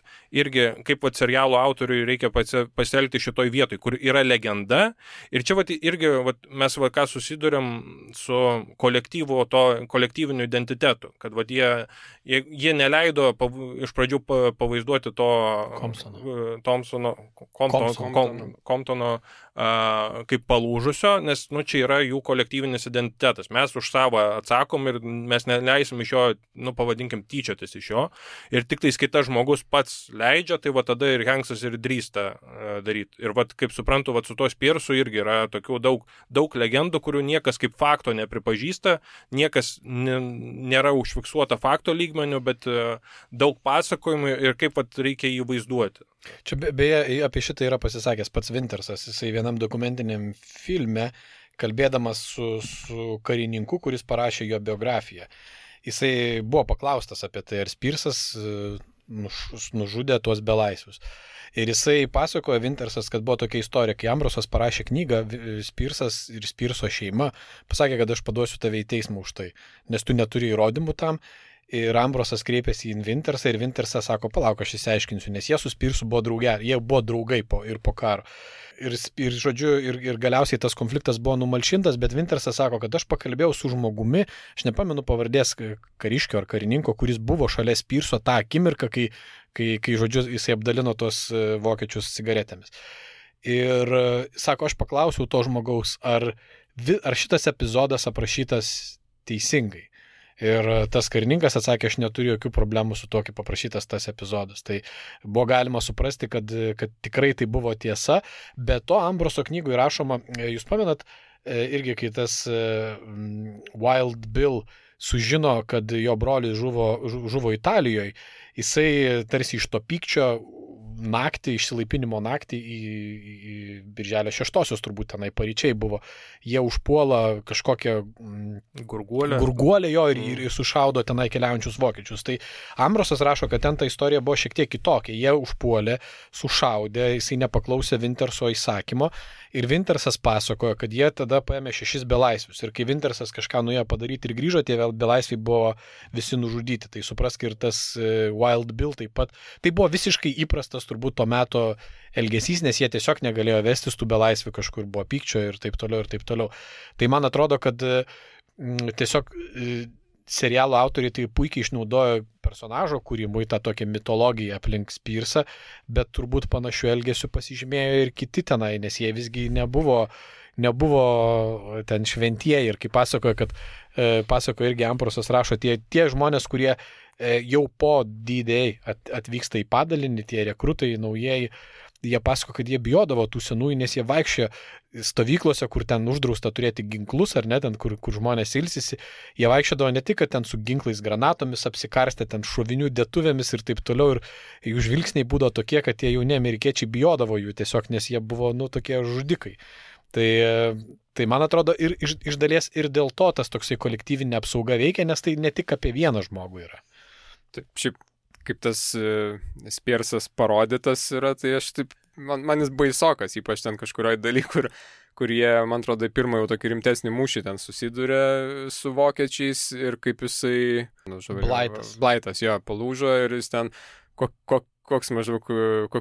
irgi, kaip serialo autoriui reikia pasielgti šitoj vietoj, kur yra legenda ir čia irgi mes ką susiduriam su kolektyviniu identitetu, kad jie neleido iš pradžių pavaizduoti to Comptono kaip palūžusio, nes čia yra jų kolektyvinis identitetas. Mes už savo atsakom ir mes neleisim iš jo, pavadinkim, tyčiotis iš jo. Ir tik tais kitas žmogus pats leidžia, tai tada ir Hanksas ir drįsta daryti. Ir kaip suprantu, su to Spirsu irgi yra tokių daug legendų, kurių niekas kaip fakto nepripažįsta, niekas nėra užfiksuota fakto lygmenių, bet daug pasakojimų ir kaip reikia jį vaizduoti.
Čia beje apie šitą yra pasisakęs pats Wintersas, jisai vienam dokumentiniam filme, kalbėdamas su karininku, kuris parašė jo biografiją. Jisai buvo paklaustas apie tai, ar Spirsas nužudė tuos belaisvius. Ir jisai pasakojo, Wintersas, kad buvo tokia istorija, kai Ambrosas parašė knygą, Spirsas ir Spirso šeima pasakė, kad aš paduosiu tave į teismą už tai, nes tu neturi įrodymų tam. Ir Ambrosas kreipėsi į Wintersą ir Wintersas sako, palauk, aš įsiaiškinsiu, nes jie su Spirsu buvo draugai po karo. Ir galiausiai tas konfliktas buvo numalšintas, bet Wintersas sako, kad aš pakalbėjau su žmogumi, aš nepamenu pavardės kariškio ar karininko, kuris buvo šalia Spirso tą akimirką, kai žodžiu, jisai apdalino tos vokiečius cigaretėmis. Ir sako, aš paklausiau to žmogaus, ar šitas epizodas aprašytas teisingai. Ir tas karininkas atsakė, aš neturiu jokių problemų su to, kaip paprašytas tas epizodas. Tai buvo galima suprasti, kad tikrai tai buvo tiesa, bet to Ambroso knygui rašoma, jūs pamenat, irgi kai tas Wild Bill sužino, kad jo brolis žuvo Italijoje, jisai tarsi iš to pykčio naktį, išsilaipinimo naktį į Birželio 6-osios turbūt tenai paryčiai buvo. Jie užpuola kažkokią gurguolę jo ir sušaudo tenai keliaujančius vokiečius. Tai Ambrosas rašo, kad ten ta istorija buvo šiek tiek kitokia. Jie užpuolė, sušaudė, jisai nepaklausė Winterso įsakymo ir Wintersas pasakojo, kad jie tada paėmė 6 belaisvius. Ir kai Wintersas kažką nuėjo padaryti ir grįžo, tie belaisviai buvo visi nužudyti. Tai suprask ir tas Wild Bill taip pat. Tai buvo visiškai įprastas turbūt to meto elgesys, nes jie tiesiog negalėjo vestis tų belaisvių, kažkur buvo pykčio ir taip toliau, ir taip toliau. Tai man atrodo, kad tiesiog serialo autoriai tai puikiai išnaudojo personažo kūrimui tą tokią mitologiją aplink Spirsą, bet turbūt panašių elgesių pasižymėjo ir kiti tenai, nes jie visgi nebuvo ten šventieji. Ir kaip pasakojo irgi Ambrosas rašo, tie žmonės, kurie jau po D-Day atvyksta į padalinį, tie rekrutai naujieji, jie pasako, kad jie bijodavo tų senųjų, nes jie vaikščia stovyklose, kur ten uždrausta turėti ginklus, ar ne, ten, kur žmonės ilsisi. Jie vaikščiodavo ne tik, kad ten su ginklais, granatomis apsikarstė, ten šovinių dėtuvėmis ir taip toliau. Ir jų žvilgsniai būdavo tokie, kad tie jauni amerikiečiai bijodavo jų tiesiog, nes jie buvo, tokie žudikai. Tai man atrodo, ir iš dalies ir dėl to tas toksai kolektyvinė apsauga veikia, nes tai ne tik apie vieną žmogų yra.
Taip, šiaip, kaip tas Spirsas parodytas yra, tai aš taip, man jis baisokas, ypač ten kažkurioje daly, kur jie, man atrodo, pirmą jau tokį rimtesnį mūšį ten susidūrė su vokiečiais ir kaip jisai... Blaitas, jo, palūžo ir jis ten... Koks maždaug,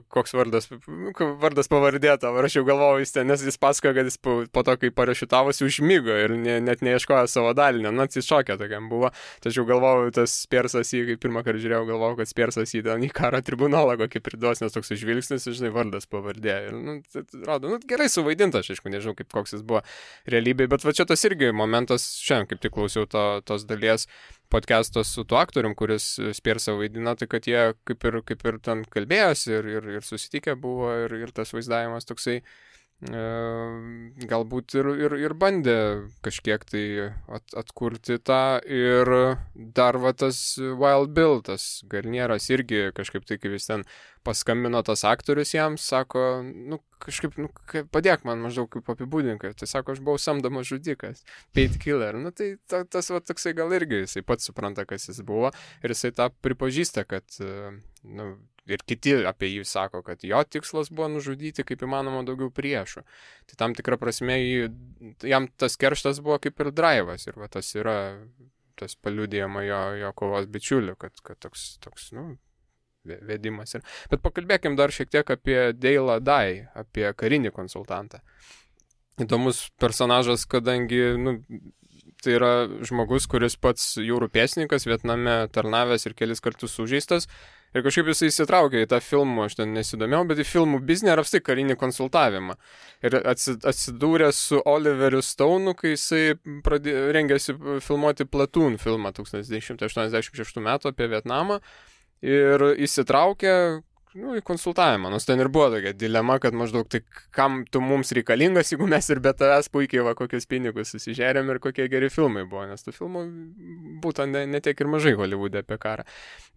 koks vardas pavardė tavo, aš jau galvojau jis ten, nes jis pasakojo, kad jis po to, kai parašiutavosi, užmigo ir net neieškojo savo dalinio, atsišokė tokiam buvo, tačiau galvojau, tas Spirsas jį, kai pirmą kartą žiūrėjau, galvojau, kad Spirsas jį ten į karo tribunolą kokį priduos, nes toks žvilgsnis, žinai, vardas pavardė. Ir, rodo, gerai suvaidinta, aš aišku, nežinau, koks jis buvo realybėje, bet va čia tas irgi momentas, šiandien kaip tik klausiau tos dalies podcast'o su tuo aktorium, kuris Spirsą vaidina, tai kad jie kaip ir ten kalbėjosi ir susitikę buvo ir tas vaizdavimas toksai galbūt ir bandė kažkiek tai atkurti tą. Ir dar va tas Wild Bill, tas Garnieras irgi kažkaip tai, kai jis ten paskambino tas aktorius jam, sako, kažkaip, padėk man maždaug kaip apibūdinkai. Tai sako, aš buvau samdomas žudikas, paid killer. Tai tas va toksai gal irgi, jisai pats supranta, kas jis buvo ir jisai tą pripažįsta, kad, ir kiti apie jį sako, kad jo tikslas buvo nužudyti kaip įmanoma daugiau priešų. Tai tam tikra prasme jam tas kerštas buvo kaip ir drivas ir va tas yra tas paliudijama jo kovos bičiulių, kad toks vedimas. Bet pakalbėkim dar šiek tiek apie Dale'ą Dye, apie karinį konsultantą. Įdomus personažas, kadangi tai yra žmogus, kuris pats jūrų pėstininkas, Vietname tarnavęs ir kelis kartus sužeistas. Ir kažkaip jisai įsitraukė į tą filmą, aš ten nesidomėjau, bet į filmų biznį ar apstai karinį konsultavimą. Ir atsidūrė su Oliveriu Stone'u, kai jisai rengėsi filmuoti Platoon filmą 1986 metų apie Vietnamą. Ir įsitraukė į konsultavimą. Nors ten ir buvo tokia dilema, kad maždaug tai kam tu mums reikalingas, jeigu mes ir be tavęs puikiai kokius pinigus susižerėm ir kokie geri filmai buvo, nes tų filmų būtų ne tiek ir mažai Hollywoode apie karą.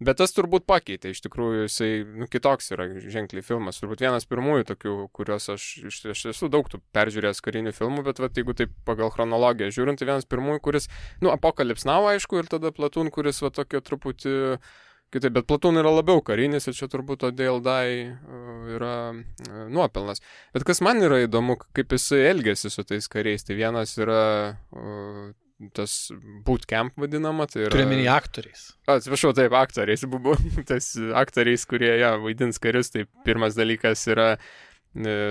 Bet tas turbūt pakeitė, iš tikrųjų jisai kitoks yra ženkliai filmas. Turbūt vienas pirmųjų tokių, kuriuos aš esu daug tų peržiūrėjęs karinių filmų, bet jeigu taip pagal chronologiją žiūrint, tai vienas pirmųjų, kuris, Apocalypse Now, aišku, ir tada Platoon, kuris tokio truputį kitaip, bet Platoon yra labiau karinis ir čia turbūt to Dale Dye yra nuopelnas. Bet kas man yra įdomu, kaip jisai elgėsi su tais kariais, tai vienas yra tas bootcamp vadinama. Tai yra...
Turiuomenį aktoriais.
Atsiprašau, taip, aktoriais. Tas aktoriais, kurie vaidins karius, tai pirmas dalykas yra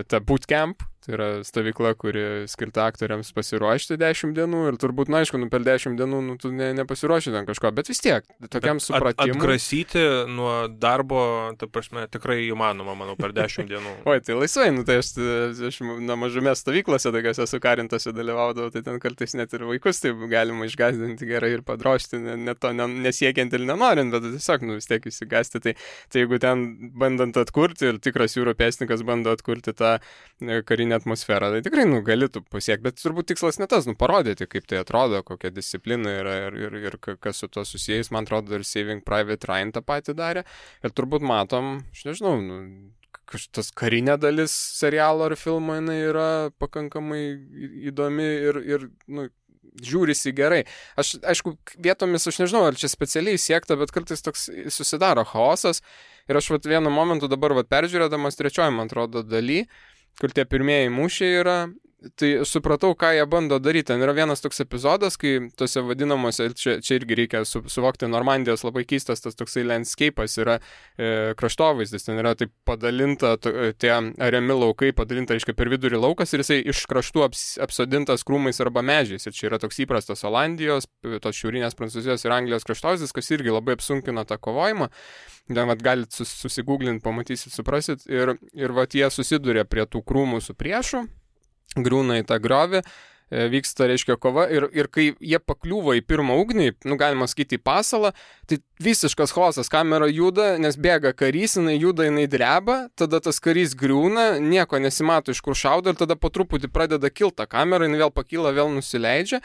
ta bootcamp. Tai yra stovykla, kuri skirta aktoriams pasiruošti 10 dienų ir turbūt, aišku, per 10 dienų tu nepasiruoši ten kažko, bet vis tiek, tokiam supratimui.
Atgrasyti nuo darbo, ta prasme, tikrai įmanoma, manau, per 10 dienų.
Oi, tai laisvai, tai aš mažume stovyklose tokiose sukarintose dalyvaudavau, tai ten kartais net ir vaikus taip galima išgąsdinti gerai ir padrošti, net to nesiekiant ir nenorint, bet tiesiog, vis tiek įsigąsti. Tai jeigu ten bandant atkurti ir tikras jūrų pėstininkas bando atkurti tą karinę atmosferą, tai tikrai galėtų pasiekti, bet turbūt tikslas ne tas, parodyti, kaip tai atrodo, kokia disciplina yra ir kas su to susijęs, man atrodo, ir Saving Private Ryan tą patį darė, ir turbūt matom, aš nežinau, tas karinė dalis serialo ar filmo, jinai yra pakankamai įdomi ir žiūrisi gerai. Aišku, vietomis, aš nežinau, ar čia specialiai siekta, bet kartais toks susidaro chaosas, ir aš vienu momentu dabar peržiūrėdamas trečioji, man atrodo, daly, kur tie pirmieji mūšiai yra, tai supratau, ką jie bando daryti. Ten yra vienas toks epizodas, kai tose vadinamuose, čia irgi reikia suvokti, Normandijos labai keistas tas toksai landscape'as yra kraštovaizdis, ten yra taip padalinta, tie ariami laukai padalinta, reiškia, per vidurį laukas ir jisai iš kraštų apsodintas krūmais arba medžiais. Ir čia yra toks įprastas Olandijos, tos šiaurinės Prancūzijos ir Anglijos kraštovaizdis, kas irgi labai apsunkina tą kovojimą. Ten galit susigūglinti, pamatysit, suprasit. Ir jie susiduria prie tų krūmų su priešu, griūna į tą griovį, vyksta, reiškia, kova ir kai jie pakliūva į pirmą ugnį, galima sakyti, į pasalą, tai visiškas chaosas, kamera juda, nes bėga karys, jinai juda, jinai dreba, tada tas karys griūna, nieko nesimato, iš kur šaudo, ir tada po truputį pradeda kilta kamera, jinai vėl pakyla, vėl nusileidžia,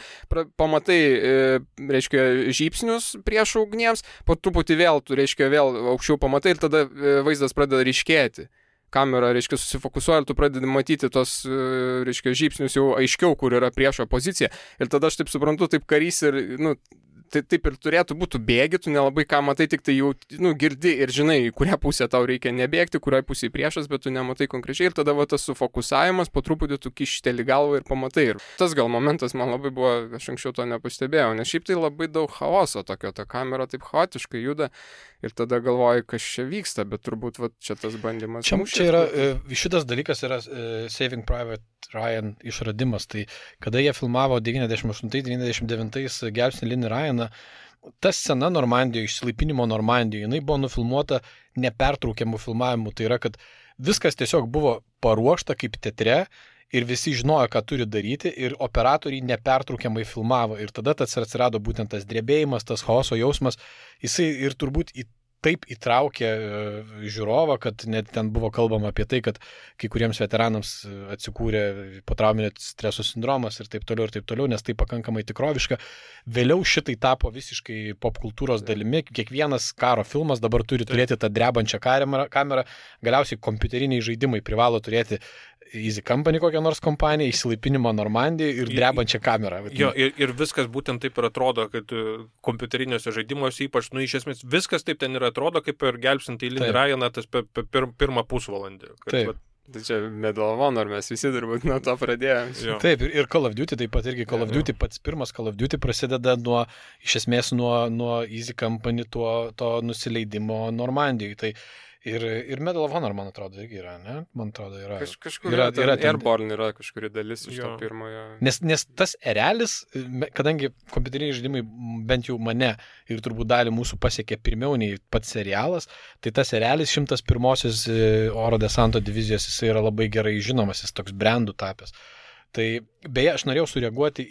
pamatai, reiškia, žybsnius prieš ugniems, po truputį vėl, tu, reiškia, vėl aukščiau pamatai ir tada vaizdas pradeda ryškėti. Kamera, reiškia, susifokusuoja ir tu pradedi matyti tos, reiškia, žybsnius jau aiškiau, kur yra priešo pozicija. Ir tada aš taip suprantu, taip karys ir, tai taip ir turėtų būti, bėgi, tu nelabai ką matai, tik tai jau, girdi ir žinai, į kurią pusę tau reikia nebėgti, kuriai pusėje priešas, bet tu nematai konkrečiai ir tada tas sufokusavimas, po truputį tu kišteli galvą ir pamatai. Ir tas gal momentas man labai buvo, aš anksčiau to nepastebėjau, nes šiaip tai labai daug chaoso tokio, ta kamera taip chaotiškai juda ir tada galvoji, kas čia vyksta, bet turbūt čia tas bandymas.
Čia yra, šitas dalykas yra Saving Private Ryan išradimas, tai kada jie filmavo 98-99 Gelbstinį Linį Ryaną, ta scena Normandijoje, išsilaipinimo Normandijoje, jinai buvo nufilmuota nepertraukiamų filmavimų, tai yra, kad viskas tiesiog buvo paruošta kaip teatre ir visi žinojo, ką turi daryti ir operatoriai nepertraukiamai filmavo ir tada tas atsirado būtent tas drebėjimas, tas chaoso jausmas, jisai ir turbūt į taip įtraukė žiūrovą, kad net ten buvo kalbama apie tai, kad kai kuriems veteranams atsikūrė potrauminio streso sindromas ir taip toliau, nes tai pakankamai tikroviška. Vėliau šitai tapo visiškai popkultūros dalimi. Kiekvienas karo filmas dabar turi turėti tą drebančią kamerą. Galiausiai kompiuteriniai žaidimai privalo turėti Easy Company kokią nors kompaniją, išsilaipinimo Normandijai ir drebančią kamerą.
Jo, ir viskas būtent taip ir atrodo, kad kompiuteriniuose žaidimuose ypač, iš esmės viskas taip ten ir atrodo, kaip ir gelbsint Eilinį Ryaną tas pirmą pusvalandį.
Taip.
Tai čia Medal of Honor, mes visi turbūt nuo to pradėjome.
Taip, ir Call of Duty taip pat irgi. Call of Duty, pats pirmas Call of Duty prasideda iš esmės nuo Easy Company to nusileidimo Normandijai. Tai ir Medal of Honor, man atrodo, irgi yra, ne? Man atrodo, yra.
Kažkur yra Airborne yra kažkuri dalis iš to pirmojo.
Nes tas erelis, kadangi kompiuteriniai žaidimai bent jau mane ir turbūt dalį mūsų pasiekė pirmiau nei pats serialas, tai tas erelis 101-osios oro desanto divizijos, jis yra labai gerai žinomas, jis toks brandų tapęs. Tai beje, aš norėjau sureaguoti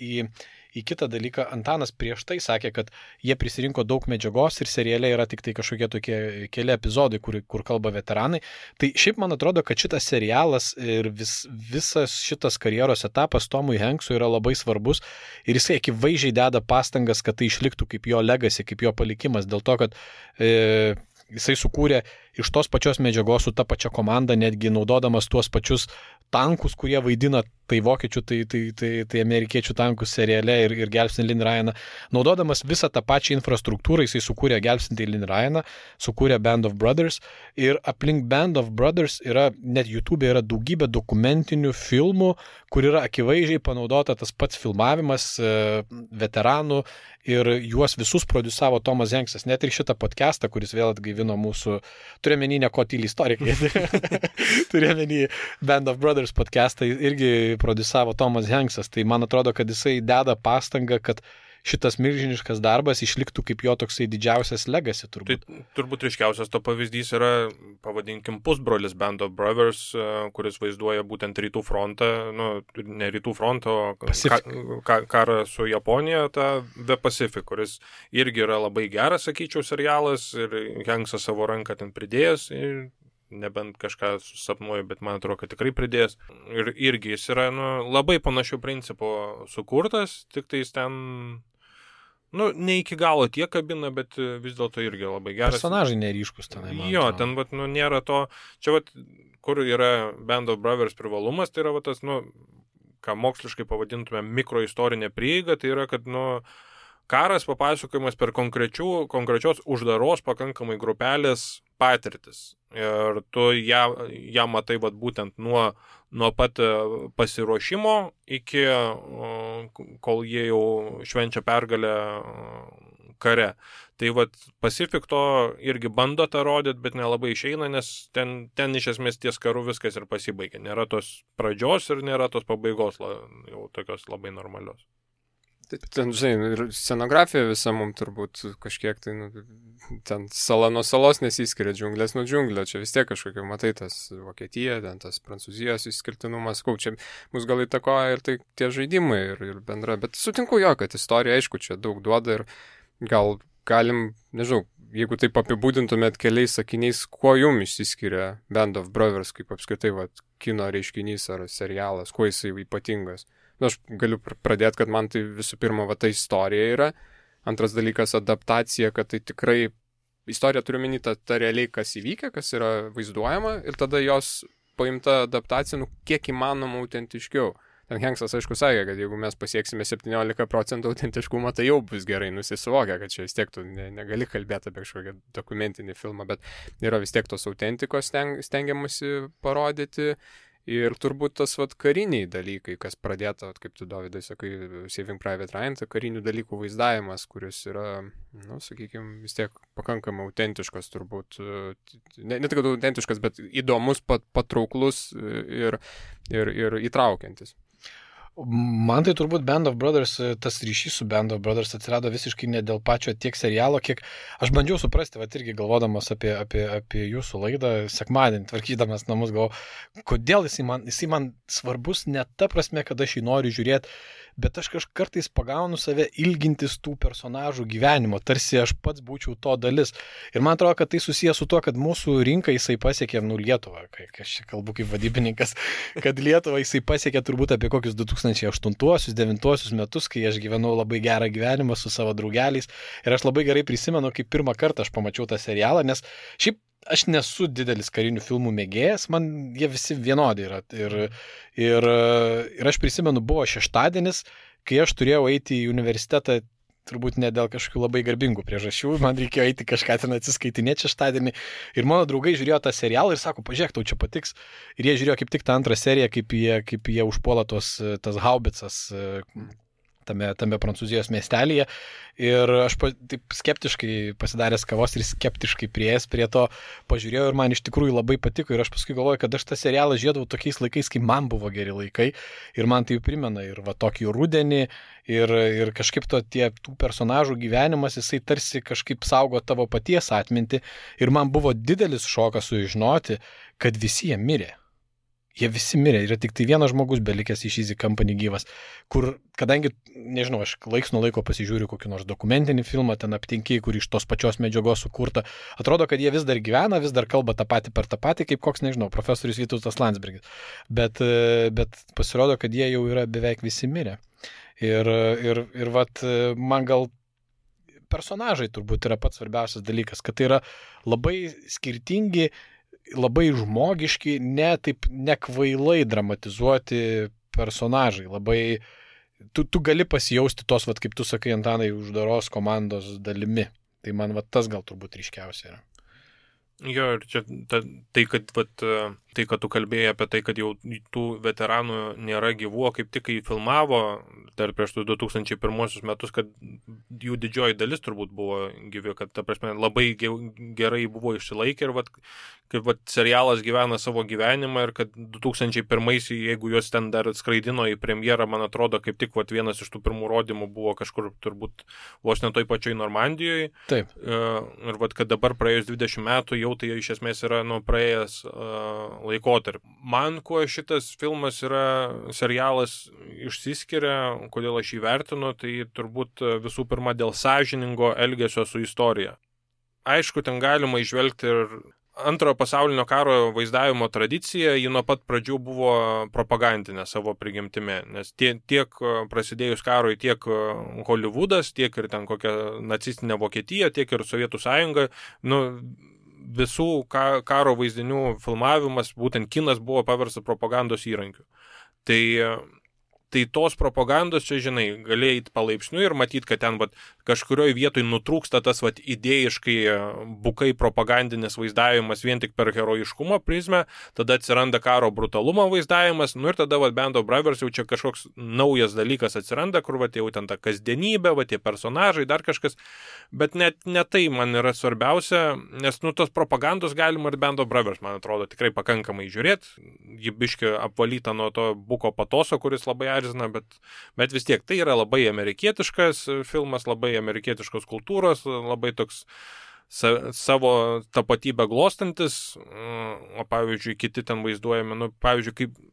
į kitą dalyką. Antanas prieš tai sakė, kad jie prisirinko daug medžiagos ir seriale yra tik tai kažkokie tokie keli epizodai, kur kalba veteranai. Tai šiaip man atrodo, kad šitas serialas ir visas šitas karjeros etapas Tomui Hanksui yra labai svarbus ir jisai akivaizdžiai deda pastangas, kad tai išliktų kaip jo legacy, kaip jo palikimas, dėl to, kad jisai sukūrė iš tos pačios medžiagos su ta pačia komanda, netgi naudodamas tuos pačius tankus, kurie vaidina tai vokiečių, tai amerikiečių tankus seriale ir gelbstinti Eilinį Ryaną. Naudodamas visą tą pačią infrastruktūrą, jisai sukūrė gelbstinti Eilinį Ryaną, sukūrė Band of Brothers ir aplink Band of Brothers yra, net YouTube yra daugybė dokumentinių filmų, kur yra akivaizdžiai panaudota tas pats filmavimas veteranų ir juos visus produsavo Tomas Hanksas. Net ir šitą podcastą, kuris vėl atgaivino mūsų, turiuomenį ne ko tyli istorikai, turiuomenį Band of Brothers podcastą irgi produsavo Tomas Hanksas. Tai man atrodo, kad jisai deda pastangą, kad šitas milžiniškas darbas išliktų kaip jo toksai didžiausias legacy turbūt.
Tai turbūt ryškiausias to pavyzdys yra, pavadinkim, pusbrolis Band of Brothers, kuris vaizduoja būtent rytų frontą, ne rytų frontą, o karą su Japonija, tą The Pacific, kuris irgi yra labai geras, sakyčiau, serialas ir Hanksas savo ranką ten pridėjęs. Nebent kažką susapnuoju, bet man atrodo, kad tikrai pridės. Ir irgi jis yra labai panašių principų sukurtas, tik tai jis ten ne iki galo tiek kabina, bet vis dėlto irgi labai geras.
Personažai neryškus tenai.
Jo, ten nėra to. Čia kur yra Band of Brothers privalumas, tai yra tas, ką moksliškai pavadintume mikroistorinė prieiga, tai yra, kad karas papasakojimas per konkrečios uždaros pakankamai grupelės patirtis. Ir tu ją matai būtent nuo pat pasiruošimo iki kol jie jau švenčia pergalę kare. Tai Pacific to irgi bando tą rodyti, bet nelabai išeina, nes ten iš esmės ties karu viskas ir pasibaigia. Nėra tos pradžios ir nėra tos pabaigos jau tokios labai normalios.
Ten, žinai, ir scenografija visa mums turbūt kažkiek tai, ten sala nuo salos nesiskiria, džiunglės nuo džiunglio, čia vis tiek kažkokia, matai, tas Vokietija, ten tas Prancūzijos išskirtinumas, čia mus gal įtakoja ir tai tie žaidimai ir bendra, bet sutinku jo, kad istorija, aišku, čia daug duoda ir gal galim, nežinau, jeigu taip apibūdintumėt keliais sakiniais, kuo jums išsiskiria Band of Brothers, kaip apskritai kino reiškinys ar serialas, kuo jisai ypatingas. Aš galiu pradėti, kad man tai visų pirma ta istorija yra. Antras dalykas adaptacija, kad tai tikrai istorija turiu menį ta realiai, kas įvykia, kas yra vaizduojama ir tada jos paimta adaptacija, kiek įmanoma autentiškiau. Ten Hanksas, aišku, sakė, kad jeigu mes pasieksime 17% autentiškumą, tai jau bus gerai nusisuvokia, kad čia vis tiek tu negali kalbėti apie kažkokią dokumentinį filmą, bet yra vis tiek tos autentikos stengiamasi parodyti. Ir turbūt tas kariniai dalykai, kas pradėta, kaip tu, Dovydai, sakai, Saving Private Ryan, tai karinių dalykų vaizdavimas, kuris yra, sakykime, vis tiek pakankamai autentiškas turbūt, ne tik autentiškas, bet įdomus, patrauklus ir įtraukiantis.
Man tai turbūt Band of Brothers, tas ryšys su Band of Brothers atsirado visiškai ne dėl pačio tiek serialo, kiek aš bandžiau suprasti, irgi galvodamas apie jūsų laidą, sekmadienį tvarkydamas namus, galvoju, kodėl jisai man svarbus ne ta prasme, kad aš jį noriu žiūrėti bet aš kartais pagaunu save ilgintis tų personažų gyvenimo, tarsi aš pats būčiau to dalis. Ir man atrodo, kad tai susijęs su tuo, kad mūsų rinką jisai pasiekė, Lietuvą, kai aš kalbu kaip vadybininkas, kad Lietuvą jisai pasiekė turbūt apie kokius 2008-2009 metus, kai aš gyvenau labai gerą gyvenimą su savo draugeliais. Ir aš labai gerai prisimenu, kaip pirmą kartą aš pamačiau tą serialą, nes šiaip aš nesu didelis karinių filmų mėgėjas, man jie visi vienodi yra. Ir aš prisimenu, buvo šeštadienis, kai aš turėjau eiti į universitetą, turbūt ne dėl kažkokių labai garbingų priežasčių, man reikėjo eiti kažką ten atsiskaitinėti šeštadienį. Ir mano draugai žiūrėjo tą serialą ir sako, pažiūrėk, tau čia patiks. Ir jie žiūrėjo kaip tik tą antrą seriją, kaip jie užpuola tas haubicas tame Prancūzijos miestelėje. Ir aš taip skeptiškai pasidaręs kavos ir skeptiškai prieėjęs prie to pažiūrėjau ir man iš tikrųjų labai patiko. Ir aš paskui galvoju, kad aš tą serialą žiūrėdavau tokiais laikais, kai man buvo geri laikai. Ir man tai primena ir va tokį rudenį. Ir kažkaip tų personažų gyvenimas, jisai tarsi kažkaip saugo tavo paties atmintį. Ir man buvo didelis šokas sužinoti, kad visi jie mirė. Jie visi mirė, yra tik tai vienas žmogus belikęs iš Easy Company gyvas, kur, kadangi, nežinau, aš laiks nuo laiko pasižiūriu kokį nors dokumentinį filmą, ten aptinki, kur iš tos pačios medžiagos sukurta, atrodo, kad jie vis dar gyvena, vis dar kalba tą patį per tą patį, kaip koks, nežinau, profesorius Vytautas Landsbergis. Bet pasirodo, kad jie jau yra beveik visi mirę. Ir vat, man gal personažai turbūt yra pats svarbiausias dalykas, kad tai yra labai skirtingi, labai žmogiški, nekvailai dramatizuoti personažai. Labai, tu gali pasijausti tos, vat, kaip tu sakai, Antanai, uždaros komandos dalimi. Tai man vat, tas gal turbūt ryškiausia yra.
Jo, ir čia tai, kad tu kalbėjai apie tai, kad jau tų veteranų nėra gyvų, kaip tik kai filmavo dar prieš 2001 metus, kad jų didžioji dalis turbūt buvo gyvi, kad ta prasme labai gerai buvo išsilaikę ir kaip serialas gyvena savo gyvenimą ir kad 2001, jeigu juos ten dar skraidino į premjerą, man atrodo, kaip tik vienas iš tų pirmų rodymų buvo kažkur turbūt vos ne toj pačioj Normandijoje.
Taip.
Ir kad dabar praėjus 20 metų jau tai iš esmės yra praėjęs laikotarpį. Man kuo šitas filmas serialas išsiskiria, kodėl aš jį vertinu, tai turbūt visų pirma dėl sąžiningo elgesio su istorija. Aišku, ten galima įžvelgti ir Antrojo pasaulinio karo vaizdavimo tradicija, ji nuo pat pradžių buvo propagandinė savo prigimtimi, nes tiek prasidėjus karui, tiek Hollywoodas, tiek ir ten kokia nacistinė Vokietija, tiek ir Sovietų sąjunga, visų karo vaizdinių filmavimas, būtent kinas buvo paverstas propagandos įrankiu. Tai tos propagandos čia, žinai, gali eiti palaipsniui ir matyti, kad ten kažkurioje vietoje nutrūksta tas idėjiškai bukai propagandinis vaizdavimas vien tik per herojiškumo prizmę, tada atsiranda karo brutalumo vaizdavimas, ir tada Band of Brothers jau čia kažkoks naujas dalykas atsiranda, kur jau ten ta kasdienybė, tie personažai, dar kažkas, bet net ne tai man yra svarbiausia, nes tos propagandos galima ir Band of Brothers, man atrodo, tikrai pakankamai žiūrėti, ji biški apvalyta nuo to buko patoso, kuris labai erzina, bet vis tiek tai yra labai amerikietiškas filmas, labai amerikietiškos kultūros, labai toks savo tapatybę glostantis, o pavyzdžiui, kiti ten vaizduojami, pavyzdžiui, kaip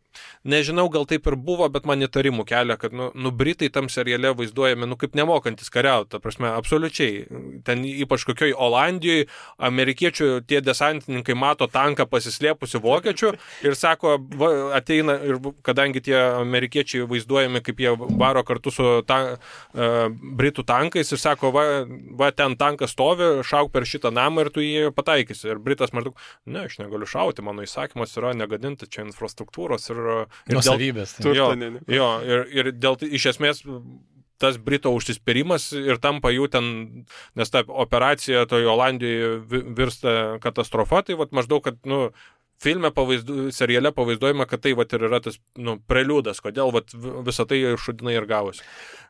nežinau, gal taip ir buvo, bet man įtarimų kelia, kad Britai tam seriale vaizduojami, kaip nemokantis kariauti, ta prasme, absoliučiai. Ten ypač kokioj Olandijoje amerikiečių tie desantininkai mato tanką pasislėpusi vokiečių ir sako, ateina, ir kadangi tie amerikiečiai vaizduojami, kaip jie varo kartu su Britų tankais ir sako, va ten tankas stovi, šauk per šitą namą ir tu jį pataikysi. Ir Britas maždaug, ne, aš negaliu šauti, mano įsakymas yra negadinti čia infrastruktūros ir
nuosavybės.
Ir dėl iš esmės tas Brito užsispyrimas ir tampa jų ten, nes ta operacija toje Olandijoje virsta katastrofa, tai maždaug, kad filme seriale pavaizduojama, kad tai ir yra tas preliudas, kodėl visą tai šudinai ir gavosi.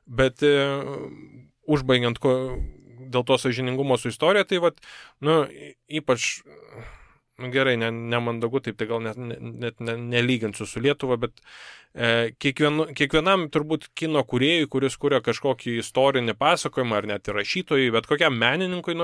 Bet užbaigiant dėl to sąžiningumo su istorija, tai ypač gerai, nemandagu, taip tai gal net nelyginsiu su Lietuva, bet kiekvienam turbūt kino kūrėjui, kuris kuria kažkokį istorinį pasakojimą, ar net ir rašytojui, bet kokiam menininkui,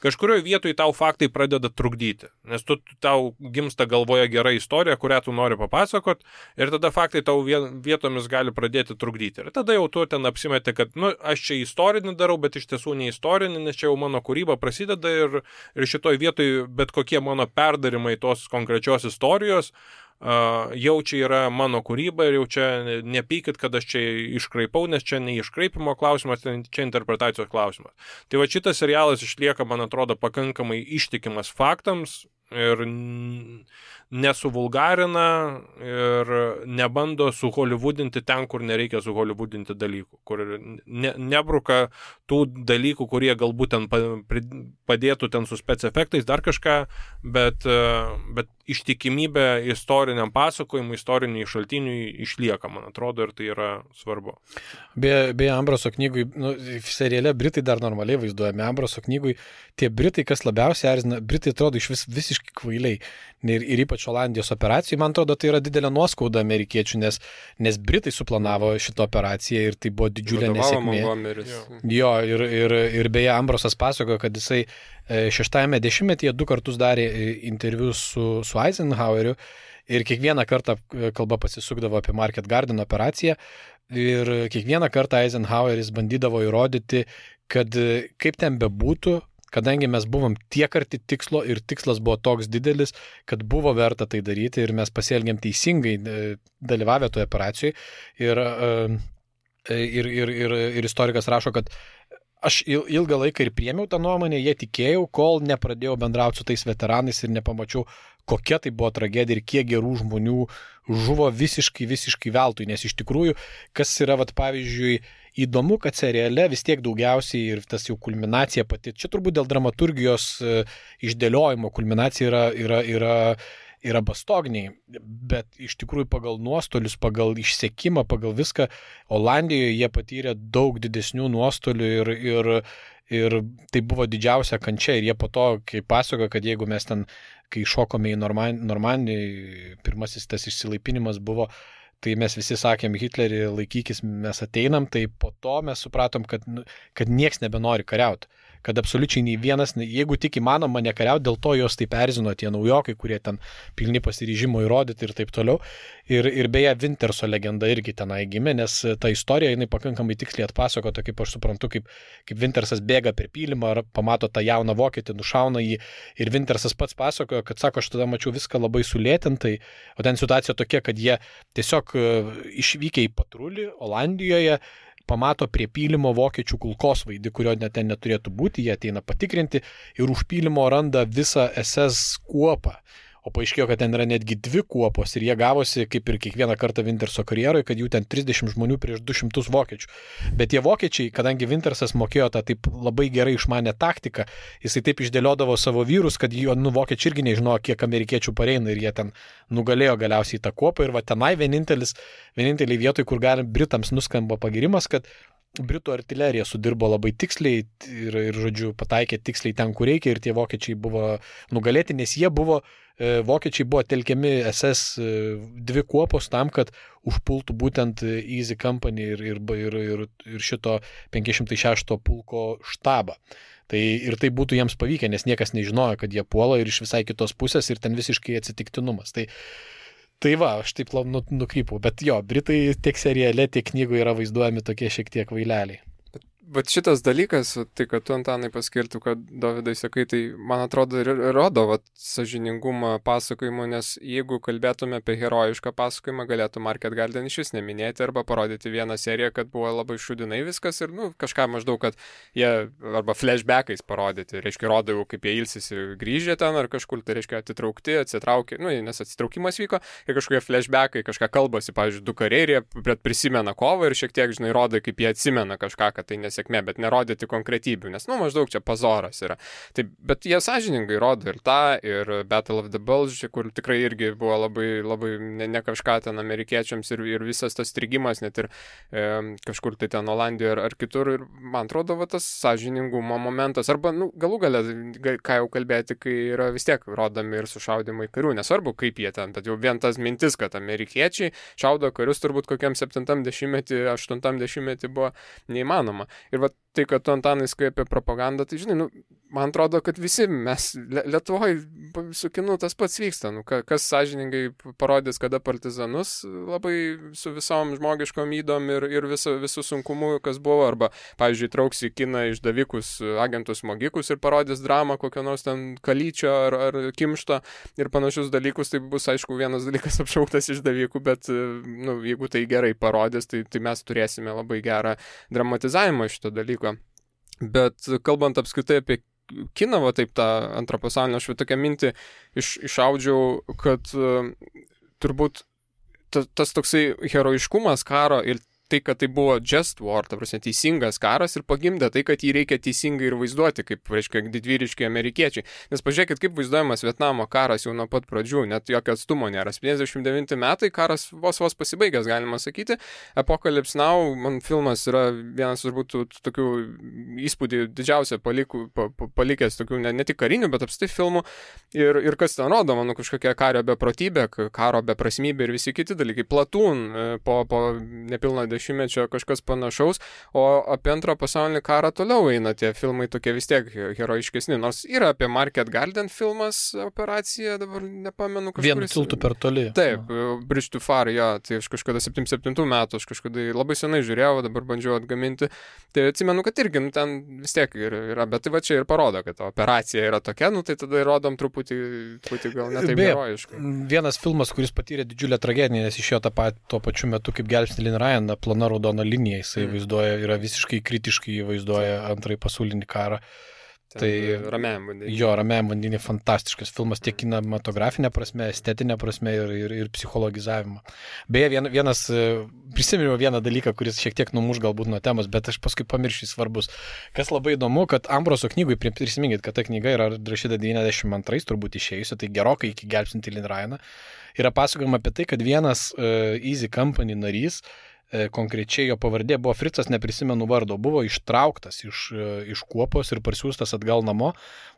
kažkurioje vietoje tau faktai pradeda trukdyti. Nes tau gimsta galvoje gera istorija, kurią tu nori papasakot, ir tada faktai tau vietomis gali pradėti trukdyti. Ir tada jau tu ten apsimeti, kad aš čia istorinį darau, bet iš tiesų ne istorinį, nes čia jau mano kūryba prasideda ir šitoj vietoj bet kokie mano perdarimai tos konkrečios istorijos jau čia yra mano kūryba ir jau čia nepykit, kad aš čia iškraipau, nes čia ne iškraipimo klausimas, čia interpretacijos klausimas. Tai va šitas serialas išlieka, man atrodo, pakankamai ištikimas faktams ir nesuvulgarina ir nebando suholivudinti ten, kur nereikia suholivudinti dalykų, kur nebruka tų dalykų, kurie galbūt ten padėtų ten su spec efektais, dar kažką, bet ištikimybė istoriniam pasakojimui, istoriniai šaltiniui išlieka, man atrodo, ir tai yra svarbu.
Beje, Ambraso knygui, seriale Britai dar normaliai vaizduojami, Ambraso knygui tie Britai, kas labiausiai erzina, Britai atrodo iš visiškai kvailiai. Ir ypač Olandijos operacijai, man atrodo, tai yra didelė nuoskauda amerikiečių, nes Britai suplanavo šitą operaciją ir tai buvo didžiulė nesėkmė. Jo, ir beje, Ambrosas pasakojo, kad jisai 60-ame dešimtmetyje 2 kartus darė interviu su Eisenhoweriu ir kiekvieną kartą kalba pasisukdavo apie Market Garden operaciją ir kiekvieną kartą Eisenhoweris bandydavo įrodyti, kad kaip ten bebūtų, kadangi mes buvom tiek arti tikslo ir tikslas buvo toks didelis, kad buvo verta tai daryti ir mes pasielgėm teisingai dalyvavę toje operacijoje. Ir istorikas rašo, kad aš ilgą laiką ir priėmiau tą nuomonę, jie tikėjau, kol nepradėjau bendrauti su tais veteranais ir nepamačiau, kokia tai buvo tragedija ir kiek gerų žmonių žuvo visiškai veltui. Nes iš tikrųjų, kas yra, pavyzdžiui, įdomu, kad seriale vis tiek daugiausiai ir tas jau kulminacija pati, čia turbūt dėl dramaturgijos išdėliojimo kulminacija yra bastogniai, bet iš tikrųjų pagal nuostolius, pagal išsekimą, pagal viską, Olandijoje jie patyrė daug didesnių nuostolių ir tai buvo didžiausia kančia ir jie po to, kai pasakojo, kad jeigu mes ten, kai šokome į Normandiją, pirmasis tas išsilaipinimas buvo, tai mes visi sakėm, Hitlerį laikykis, mes ateinam, tai po to mes supratom, kad nieks nebenori kariauti. Kad absoliučiai nei vienas, jeigu tik įmanoma nekariauti, dėl to jos taip erzino tie naujokai, kurie ten pilni pasiryžimo įrodyti ir taip toliau. Ir beje, Winterso legenda irgi tenai gimė, nes ta istorija, jinai pakankamai tiksliai atpasakota, kaip aš suprantu, kaip Wintersas bėga per pylimą, ar pamato tą jauną vokietį, nušauna jį. Ir Wintersas pats pasakojo, kad sako, aš tada mačiau viską labai sulėtintai, o ten situacija tokia, kad jie tiesiog išvykę į patrulį Olandijoje, pamato prie pylimo vokiečių kulkosvaidį, kurio net ten neturėtų būti, jie ateina patikrinti ir už pylimo randa visą SS kuopą. O paaiškėjo, kad ten yra netgi 2 kuopos ir jie gavosi, kaip ir kiekvieną kartą Winterso karjeroje, kad jų ten 30 žmonių prieš 200 vokiečių. Bet tie vokiečiai, kadangi Wintersas mokėjo tą taip labai gerai išmanę taktiką, jisai taip išdėliodavo savo vyrus, kad vokiečiai irgi nežinojo, kiek amerikiečių pareina ir jie ten nugalėjo galiausiai tą kuopą. Ir va tenai vieninteliai vietoj, kur Britams nuskamba pagirimas, kad Britų artilerija sudirbo labai tiksliai ir žodžiu, pataikė tiksliai ten, kur reikia ir tie vokiečiai buvo nugalėti, nes vokiečiai buvo telkiami SS 2 kuopos tam, kad užpultų būtent Easy Company ir šito 506 pulko štabą. Ir tai būtų jiems pavykę, nes niekas nežinojo, kad jie puola ir iš visai kitos pusės ir ten visiškai atsitiktinumas. Tai va, aš taip nukrypau, bet jo, Britai tiek seriale, tiek knygoje yra vaizduojami tokie šiek tiek vaileliai.
Bet šitas dalykas, tai kad tu, Antanai, paskirtų, kad Dovydai sakai, tai man atrodo rodo sąžiningumą pasakojimo, nes jeigu kalbėtume apie herojišką pasakojimą, galėtų Market Garden iš vis neminėti arba parodyti vieną seriją, kad buvo labai šudinai viskas ir kažką maždaug, kad jie arba flashbackais parodyti, reiškia, rodau, kaip jie ilsisi grįžę ten ar kažkur, tai reiškia atitraukti, atsitraukė, nes atsitraukimas vyko ir kažkokie flashbackai, kažką kalbasi, pavyzdžiui, 2 kariai ir jie prisimena kovą ir šiek tiek, žinai, rodo, kaip jie atsimena kažką, kad tai nes sėkmė, bet nerodyti konkretybių, nes, maždaug čia pazoras yra. Taip, bet jie sąžiningai rodo ir tą, ir Battle of the Bulge, kur tikrai irgi buvo labai, labai ne kažką ten amerikiečiams ir visas tas strigimas, net ir kažkur tai ten Olandijoje ar kitur, ir man atrodo, tas sąžiningumo momentas, arba, galų gale, ką jau kalbėti, kai yra vis tiek rodomi ir sušaudimai karių, nesvarbu kaip jie ten, bet jau vien tas mintis, kad amerikiečiai šaudo karius turbūt kokiam 70-metį, 80-metį buvo neįmanoma. Ir va tai, kad tu, Antanai, skai apie propagandą, tai žinai, man atrodo, kad visi mes Lietuvoje su kinu tas pats vyksta. Kas sąžiningai parodys, kada partizanus labai su visom žmogiškom ydom ir visų sunkumų, kas buvo, arba, pavyzdžiui, trauks į kiną išdavikus, agentus smogikus ir parodys dramą kokio nors ten Kalyčio ar Kimšto ir panašius dalykus, tai bus, aišku, vienas dalykas apšauktas išdavikų, bet, jeigu tai gerai parodys, tai mes turėsime labai gerą dramatizavimą šito dalyko. Bet kalbant apskritai apie kiną, taip tą antrą pasaulinę, aš tokią mintį išaudžiau, kad turbūt tas toksai herojiškumas karo ir tai, kad tai buvo just war, ta prasme, teisingas karas ir pagimdė tai, kad jį reikia teisingai ir vaizduoti, kaip, reiškia, didvyriški amerikiečiai. Nes pažiūrėkit, kaip vaizduojamas Vietnamo karas jau nuo pat pradžių, net jokio atstumo nėra. 59 metai, karas vos pasibaigęs, galima sakyti. Apocalypse Now, man filmas yra vienas turbūt tokių įspūdį didžiausia palikęs tokių ne tik karinių, bet apstai filmų. Ir kas ten rodo, manau, kažkokia kario beprotybė, karo beprasmybė ir visi kiti dalykai. Platoon po nepilno dešimtmečio kažkas panašaus, o apie antrą pasaulinį karą toliau eina tie filmai tokie vis tiek herojiškesni, nors yra apie Market Garden filmas, operacija, dabar nepamenu kažkuris.
Vienu tiltu per toli.
Taip, Bridge too Far, tai aš kažkada 77 metų, aš kažkada labai senai žiūrėjau, dabar bandžiau atgaminti, tai atsimenu, kad irgi, ten vis tiek yra, bet tai va čia ir parodo, kad operacija yra tokia, tai tada rodom truputį gal netaip herojiškai.
Vienas filmas, kuris patyrė didžiulę tragediją, nes išėjo tuo pačiu metu kaip Gelbsti Lin Ryan, plona raudona linija, jisai vaizduoja, yra visiškai kritiškai vaizduoja antrąjį pasaulinį karą. Tai
Ramiajam vandenį.
Jo, Ramiajam vandenį fantastiškas filmas tiek kinematografinė prasme, estetinė prasme ir psichologizavimo. Beje, prisiminiau vieną dalyką, kuris šiek tiek numuš galbūt nuo temos, bet aš paskui pamiršiu svarbus. Kas labai įdomu, kad Ambroso knygui, prisiminkit, kad ta knyga yra rašyta 92 turbūt išėjusi, tai gerokai iki Gelbstintį Lin Ryaną, yra pasakojama apie tai, kad vienas Easy Company narys, konkrečiai jo pavardė buvo Fritzas, neprisimenu vardo, buvo ištrauktas iš kuopos ir parsiųstas atgal namo,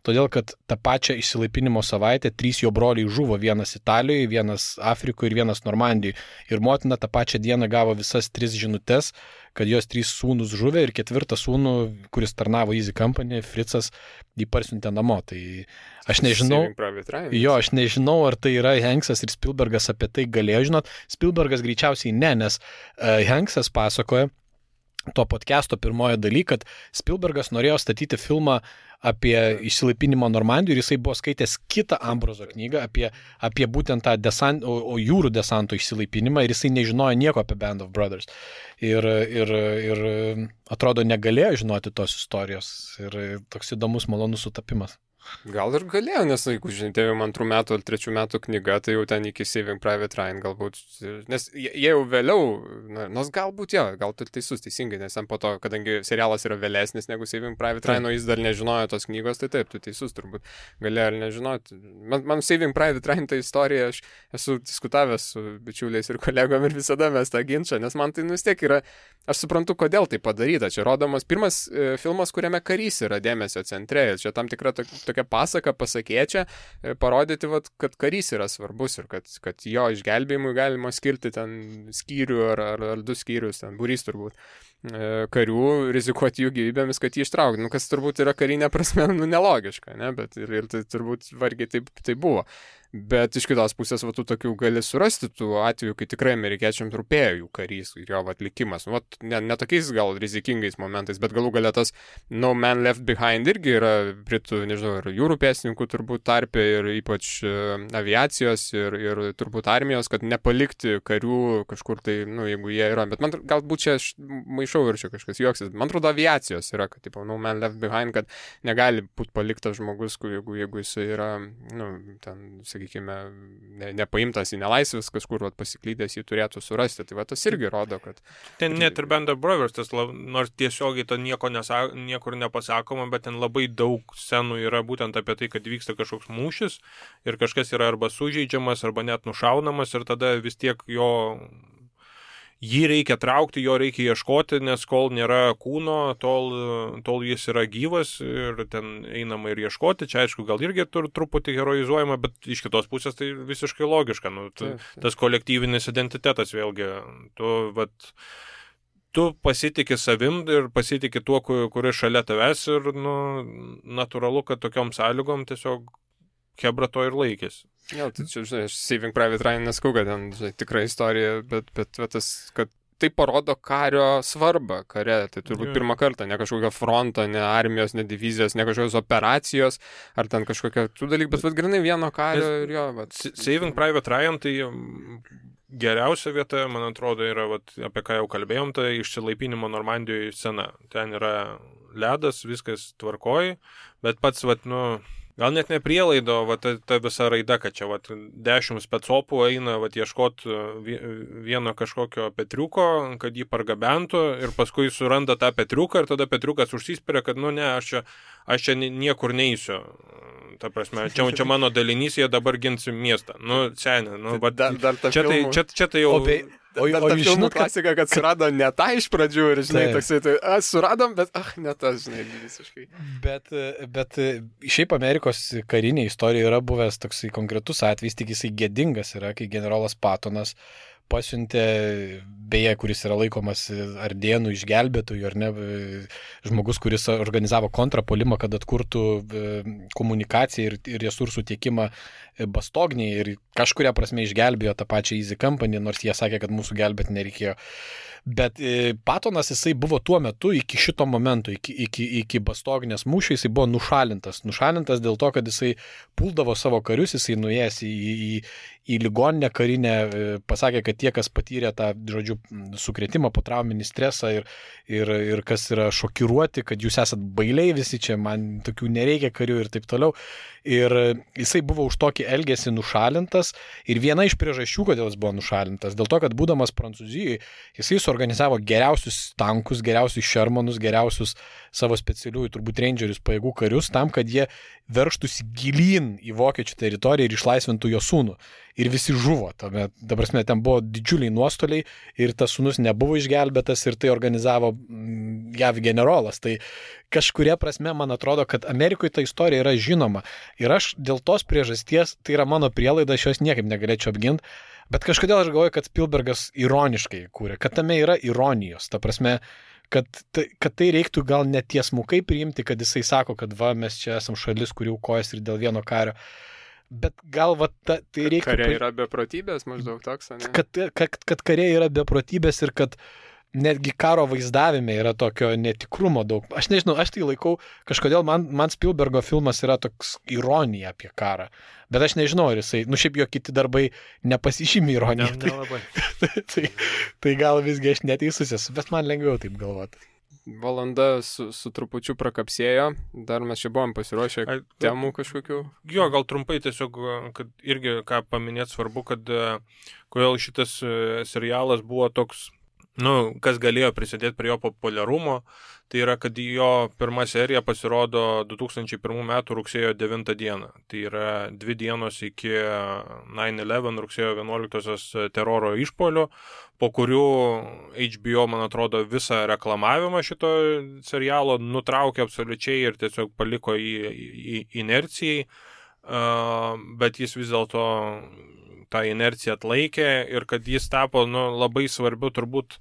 todėl kad tą pačią išsilaipinimo savaitę 3 jo broliai žuvo, vienas Italijoje, vienas Afrikoje ir vienas Normandijoje. Ir motina tą pačią dieną gavo visas 3 žinutes, kad jos 3 sūnus žuvė ir 4 sūnų, kuris tarnavo Easy Company, Fritzas, jį parsiuntė namo. Tai aš nežinau, ar tai yra Hanksas ir Spielbergas apie tai galėjo žinot. Spielbergas greičiausiai ne, nes Hanksas pasakoja to podcast'o pirmoje daly, kad Spielbergas norėjo statyti filmą apie išsilaipinimą Normandijoje ir jisai buvo skaitęs kitą Ambroso knygą apie būtent tą jūrų desanto išsilaipinimą ir jisai nežinojo nieko apie Band of Brothers. Ir atrodo negalėjo žinoti tos istorijos ir toks įdomus, malonus sutapimas.
Gal ir galėjo, nes, jeigu žinai, 2 metų ar 3 metų knyga, tai jau ten iki Saving Private Ryan galbūt, nes jie jau vėliau, nors galbūt gal tu teisus, teisingai, nes ten po to, kadangi serialas yra vėlesnis negu Saving Private Ryan, o jis dar nežinojo tos knygos, tai taip, tu teisus turbūt galėjo ir nežinoti. Man Saving Private Ryan ta istorija, aš esu diskutavęs su bičiuliais ir kolegom ir visada mes tą ginčą, nes man tai vis tiek yra, aš suprantu, kodėl tai padaryta. Čia rodomas pirmas filmas, kuriame karys yra dėmesio centre, čia tam tikra tokia pasaka, pasakėčia, parodyti, kad karys yra svarbus ir kad jo išgelbėjimui galima skirti ten skyrių ar 2 skyrius, ten būrys turbūt karių, rizikuoti jų gyvybėmis, kad jį ištraukti. Kas turbūt yra karinė prasme nelogiška, ne? Bet ir tai turbūt vargiai tai buvo. Bet iš kitos pusės, tu tokių gali surasti tų atvejų, kai tikrai amerikiečiams rūpėjo jų karys ir jo atlikimas. Ne tokiais gal rizikingais momentais, bet galų galia tas No Man Left Behind irgi yra britų, nežinau, ir jūrų pėstininkų turbūt tarpe ir ypač aviacijos ir turbūt armijos, kad nepalikti karių kažkur tai, jeigu jie yra. Bet man galbūt čia aš maišau ir čia kažkas juoksis. Man atrodo aviacijos yra, kad No Man Left Behind, kad negali būti paliktas žmogus, jeigu jis yra, ten, sakykime, nepaimtas į nelaisvės, kažkur pasiklydęs jį turėtų surasti. Tai va tas irgi rodo, kad...
Ten net ir Band of Brothers, nors tiesiogiai to niekur nepasakoma, bet ten labai daug scenų yra būtent apie tai, kad vyksta kažkoks mūšis ir kažkas yra arba sužeidžiamas, arba net nušaunamas ir tada vis tiek jį reikia traukti, jo reikia ieškoti, nes kol nėra kūno, tol jis yra gyvas ir ten einama ir ieškoti. Čia aišku, gal irgi truputį heroizuojama, bet iš kitos pusės tai visiškai logiška. Tas kolektyvinis identitetas vėlgi. Tu pasitikė savim ir pasitikė tuo, kuris šalia tavęs ir natūralu, kad tokiom sąlygom tiesiog Hebra to ir laikėsi.
Jo, tai čia, žinai, aš Saving Private Ryan neskau, kad ten, žinai, tikra istorija, bet tas, kad tai parodo kario svarbą kare. Tai turbūt pirmą kartą, ne kažkokio fronto, ne armijos, ne divizijos, ne kažkokios operacijos, ar ten kažkokia tų dalykų, bet grinai vieno kario ir jo.
Saving Private Ryan, tai geriausia vieta, man atrodo, yra, apie ką jau kalbėjom, tai išsilaipinimo Normandijoje scena. Ten yra ledas, viskas tvarkoji, bet pats, gal net ne prielaido, ta visa raida, kad čia 10 specopų eina ieškot vieno kažkokio Petriuko, kad jį pargabentų ir paskui suranda tą Petriuką ir tada Petriukas užsispiria, kad aš čia niekur neįsiu. Ta prasme, čia mano dalinys, jie dabar gins miestą. Seniai, čia tai jau...
O ta filmų klasika, kad surado ne tą iš pradžių ir, žinai, toksai, suradom, bet, ne tas, žinai, visiškai.
Bet šiaip Amerikos karinė istorija yra buvęs toksai konkretus atvejs, tik jisai gėdingas yra, kai generolas Pattonas pasiuntė, beje, kuris yra laikomas Ardėnų išgelbėtojų, ar ne, žmogus, kuris organizavo kontrapuolimą, kad atkurtų komunikaciją ir resursų tiekimą Bastognėje ir kažkuria prasme išgelbėjo tą pačią Easy Company, nors jie sakė, kad mūsų gelbėti nereikėjo. Bet Pattonas jisai buvo tuo metu iki šito momento, iki Bastognės mūšio, jisai buvo nušalintas. Nušalintas dėl to, kad jisai puldavo savo karius, jisai nuėjęs į ligoninę karinę, pasakė, kad tie, kas patyrė tą, žodžiu, sukrėtimą, potrauminį stresą ir kas yra šokiruoti, kad jūs esat bailiai visi čia, man tokių nereikia karių ir taip toliau. Ir jisai buvo už tokį elgesį nušalintas ir viena iš priežasčių, kodėl jis buvo nušalintas, dėl to, kad būdamas Prancūzijoje, jisai suorganizavo geriausius tankus, geriausius Shermanus, geriausius savo specialiųjų, turbūt rangerius pajėgų karius, tam, kad jie verštųsi gilyn į vokiečių teritoriją ir išlaisvintų jo sūnų. Ir visi žuvo. Ta prasme, ten buvo didžiuliai nuostoliai ir tas sūnus nebuvo išgelbėtas ir tai organizavo JAV generolas. Tai kažkuria prasme, man atrodo, kad Amerikoje ta istorija yra žinoma. Ir aš dėl tos priežasties, tai yra mano prielaida, aš jos niekaip negalėčiau apginti, bet kažkodėl aš galvoju, kad Spielbergas ironiškai kūrė, kad tame yra ironijos. Ta prasme, kad tai reiktų gal netiesmukai priimti, kad jisai sako, kad mes čia esam šalis, kurių kojas ir dėl vieno kario. Bet gal tai reiktų...
Kariai yra beprotybės, maždaug toks, ne?
Kad kariai yra beprotybės ir kad netgi karo vaizdavime yra tokio netikrumo daug. Aš nežinau, aš tai laikau, kažkodėl man Spielbergo filmas yra toks ironija apie karą. Bet aš nežinau, ar jisai, šiaip jo kiti darbai nepasižymi ironiją. Tai gal visgi aš neteisus esu, bet man lengviau taip galvoti.
Valanda su trupučiu prakapsėjo, dar mes čia buvom pasiruošę temų kažkokių.
Jo, gal trumpai tiesiog, kad irgi ką paminėti svarbu, kad kodėl šitas serialas buvo toks, kas galėjo prisidėti prie jo populiarumo, tai yra, kad jo pirma serija pasirodo 2001 metų rugsėjo 9 dieną. Tai yra 2 dienos iki 9/11 rugsėjo 11 teroro išpuolio, po kurių HBO, man atrodo, visą reklamavimą šito serialo nutraukė absoliučiai ir tiesiog paliko į inercijai, bet jis vis dėlto tą inerciją atlaikė ir kad jis tapo labai svarbiu turbūt,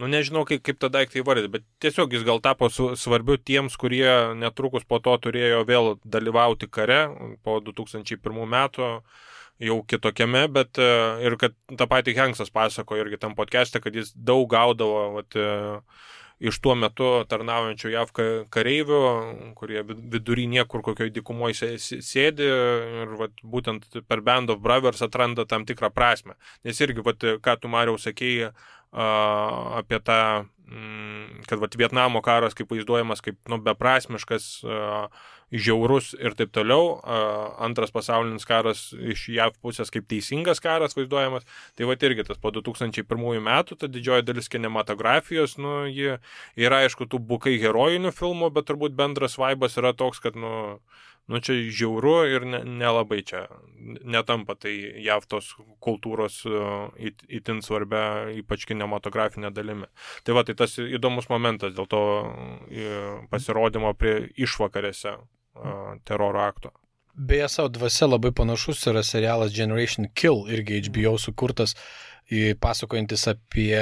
nežinau kaip tą daiktą įvardyti, bet tiesiog jis gal tapo svarbiu tiems, kurie netrukus po to turėjo vėl dalyvauti kare po 2001 metų jau kitokiame, bet ir kad tą patį Hanksas pasako irgi tam podcast'e, kad jis daug gaudavo iš tuo metu tarnaujančių JAV kareivių, kurie vidury niekur kokioj dykumoje sėdi ir būtent per Band of Brothers atranda tam tikrą prasme. Nes irgi, ką tu, Mariau, sakėjai apie tą, kad Vietnamo karas kaip vaizduojamas kaip beprasmiškas, žiaurus ir taip toliau. Antras pasaulinis karas iš JAV pusės kaip teisingas karas vaizduojamas. Tai va irgi tas po 2001 metų, ta didžioji dalis kinematografijos, ji yra aišku tų bukai herojinių filmų, bet turbūt bendras vaibas yra toks, kad čia žiauru ir nelabai čia netampa tai JAV tos kultūros itin svarbia, ypač kinematografinė dalimi. Tai va, tai tas įdomus momentas dėl to pasirodymo prie išvakarėse teroro akto.
Beje, savo dvasia labai panašus yra serialas Generation Kill, irgi HBO sukurtas, pasakojantis apie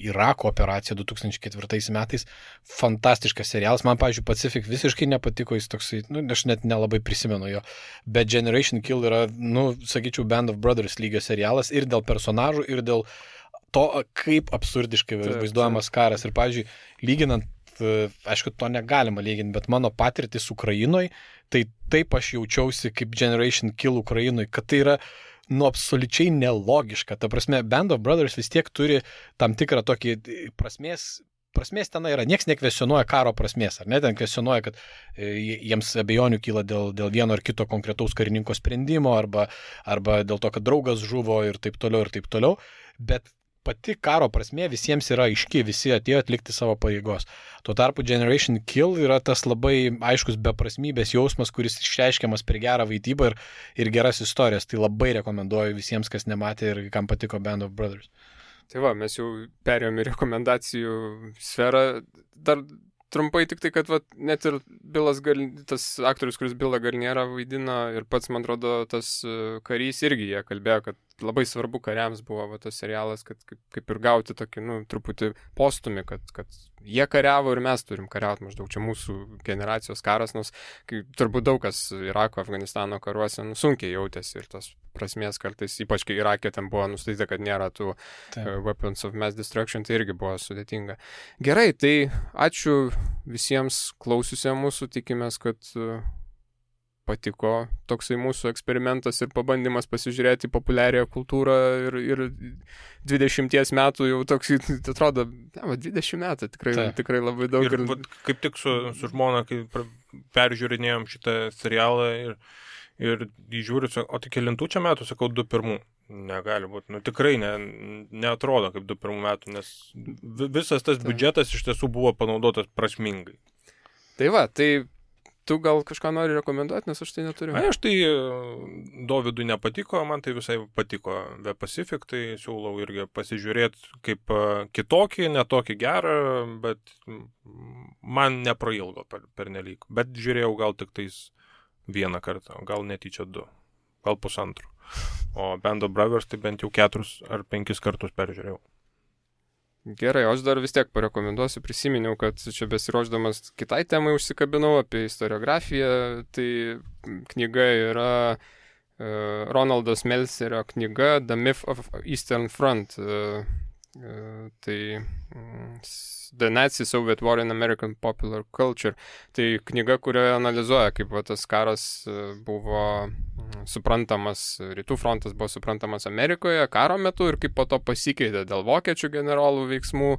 Irako operaciją 2004 metais. Fantastiškas serialas. Man, pavyzdžiui, Pacific visiškai nepatiko, jis toksai, aš net nelabai prisimenu jo. Bet Generation Kill yra, sakyčiau, Band of Brothers lygio serialas ir dėl personažų, ir dėl to, kaip absurdiškai vaizduojamas karas. Ir, pavyzdžiui, lyginant, aišku, to negalima lyginti, bet mano patirtis Ukrainoje, tai taip aš jaučiausi kaip Generation Kill Ukrainoje, kad tai yra absoliučiai nelogiška. Ta prasme, Band of Brothers vis tiek turi tam tikrą tokį prasmės tenai yra. Niekas nekvesionuoja karo prasmės, ar ne? Ten kvesionuoja, kad jiems abejonių kyla dėl vieno ar kito konkretaus karininko sprendimo, arba dėl to, kad draugas žuvo ir taip toliau. Bet pati karo prasmė visiems yra aiški, visi atėjo atlikti savo pareigos. Tuo tarpu Generation Kill yra tas labai aiškus beprasmybės jausmas, kuris išreiškiamas per gerą vaidybą ir geras istorijas. Tai labai rekomenduoju visiems, kas nematė ir kam patiko Band of Brothers.
Tai va, mes jau perėjom į rekomendacijų sferą. Dar trumpai tik tai, kad net ir tas aktorius, kuris Billą Garnierą vaidina, ir pats, man atrodo, tas karys irgi jie kalbėjo, kad labai svarbu kariams buvo tas serialas, kad kaip ir gauti tokį, truputį postumį, kad jie kariavo ir mes turim kariauti, maždaug čia mūsų generacijos karas, nors turbūt daug kas Irako, Afganistano karuose sunkiai jautėsi ir tos prasmės kartais, ypač kai Irake ten buvo nustatyta, kad nėra tų weapons of mass destruction, tai irgi buvo sudėtinga. Gerai, tai ačiū visiems klausiusiems mūsų, tikimės, kad patiko toksai mūsų eksperimentas ir pabandymas pasižiūrėti populiarią kultūrą ir 20 metų jau toks, atrodo, 20 metų tikrai labai daug.
Ir kaip tik su žmona, kai peržiūrinėjom šitą serialą ir žiūriu, o tai kelintų čia metų, sakau, 21. Negali būti. Tikrai neatrodo kaip 21 metų, nes visas tas biudžetas iš tiesų buvo panaudotas prasmingai.
Tai va, tai tu gal kažką nori rekomenduoti, nes aš tai neturiu.
Aš tai Dovydui nepatiko, man tai visai patiko The Pacific, tai siūlau irgi pasižiūrėti kaip kitokį, netokį gerą, bet man neprailgo per nelyg. Bet žiūrėjau gal tik tais vieną kartą, gal netyčia 2, gal 1,5. O Band of Brothers tai bent jau 4 ar 5 kartus peržiūrėjau.
Gerai, aš dar vis tiek parekomenduosiu, prisiminiau, kad čia besiruošdamas kitai temai užsikabinau apie istoriografiją, tai knyga yra Ronaldas Melcerio knyga The Myth of Eastern Front, tai The Nazi-Soviet War in American Popular Culture, tai knyga, kurioje analizuoja, kaip tas karas buvo suprantamas, rytų frontas buvo suprantamas Amerikoje karo metu ir kaip po to pasikeitė dėl vokiečių generolų veiksmų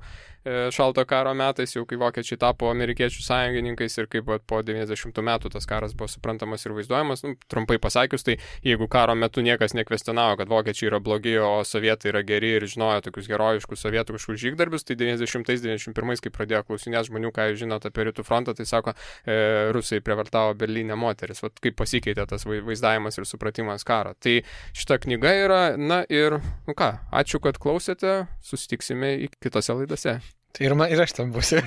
šalto karo metais, jau kai vokiečiai tapo amerikiečių sąjungininkais ir kaip po 90 metų tas karas buvo suprantamas ir vaizduojamas. Trumpai pasakius, tai jeigu karo metu niekas nekvestionavo, kad vokiečiai yra blogi, o sovietai yra geri ir žinojo tokius herojiškus sovietų kažkokius žygdarbius, tai 90-91, kai pradėjo klausinėti žmonių, ką jūs žinote apie rytų frontą, tai sako, rusai prievartavo Berlyne moteris. Vat kaip pasikeitė tas vaizdavimas ir supratimas karo. Tai šita knyga yra, ir ačiū, kad klausėte, susitiksime kitose laidose.
Tai ir aš tam būsiu.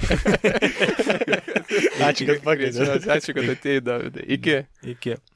Ačiū, kad pakvietėte.
Ačiū, kad atėjai, Davidai. Iki.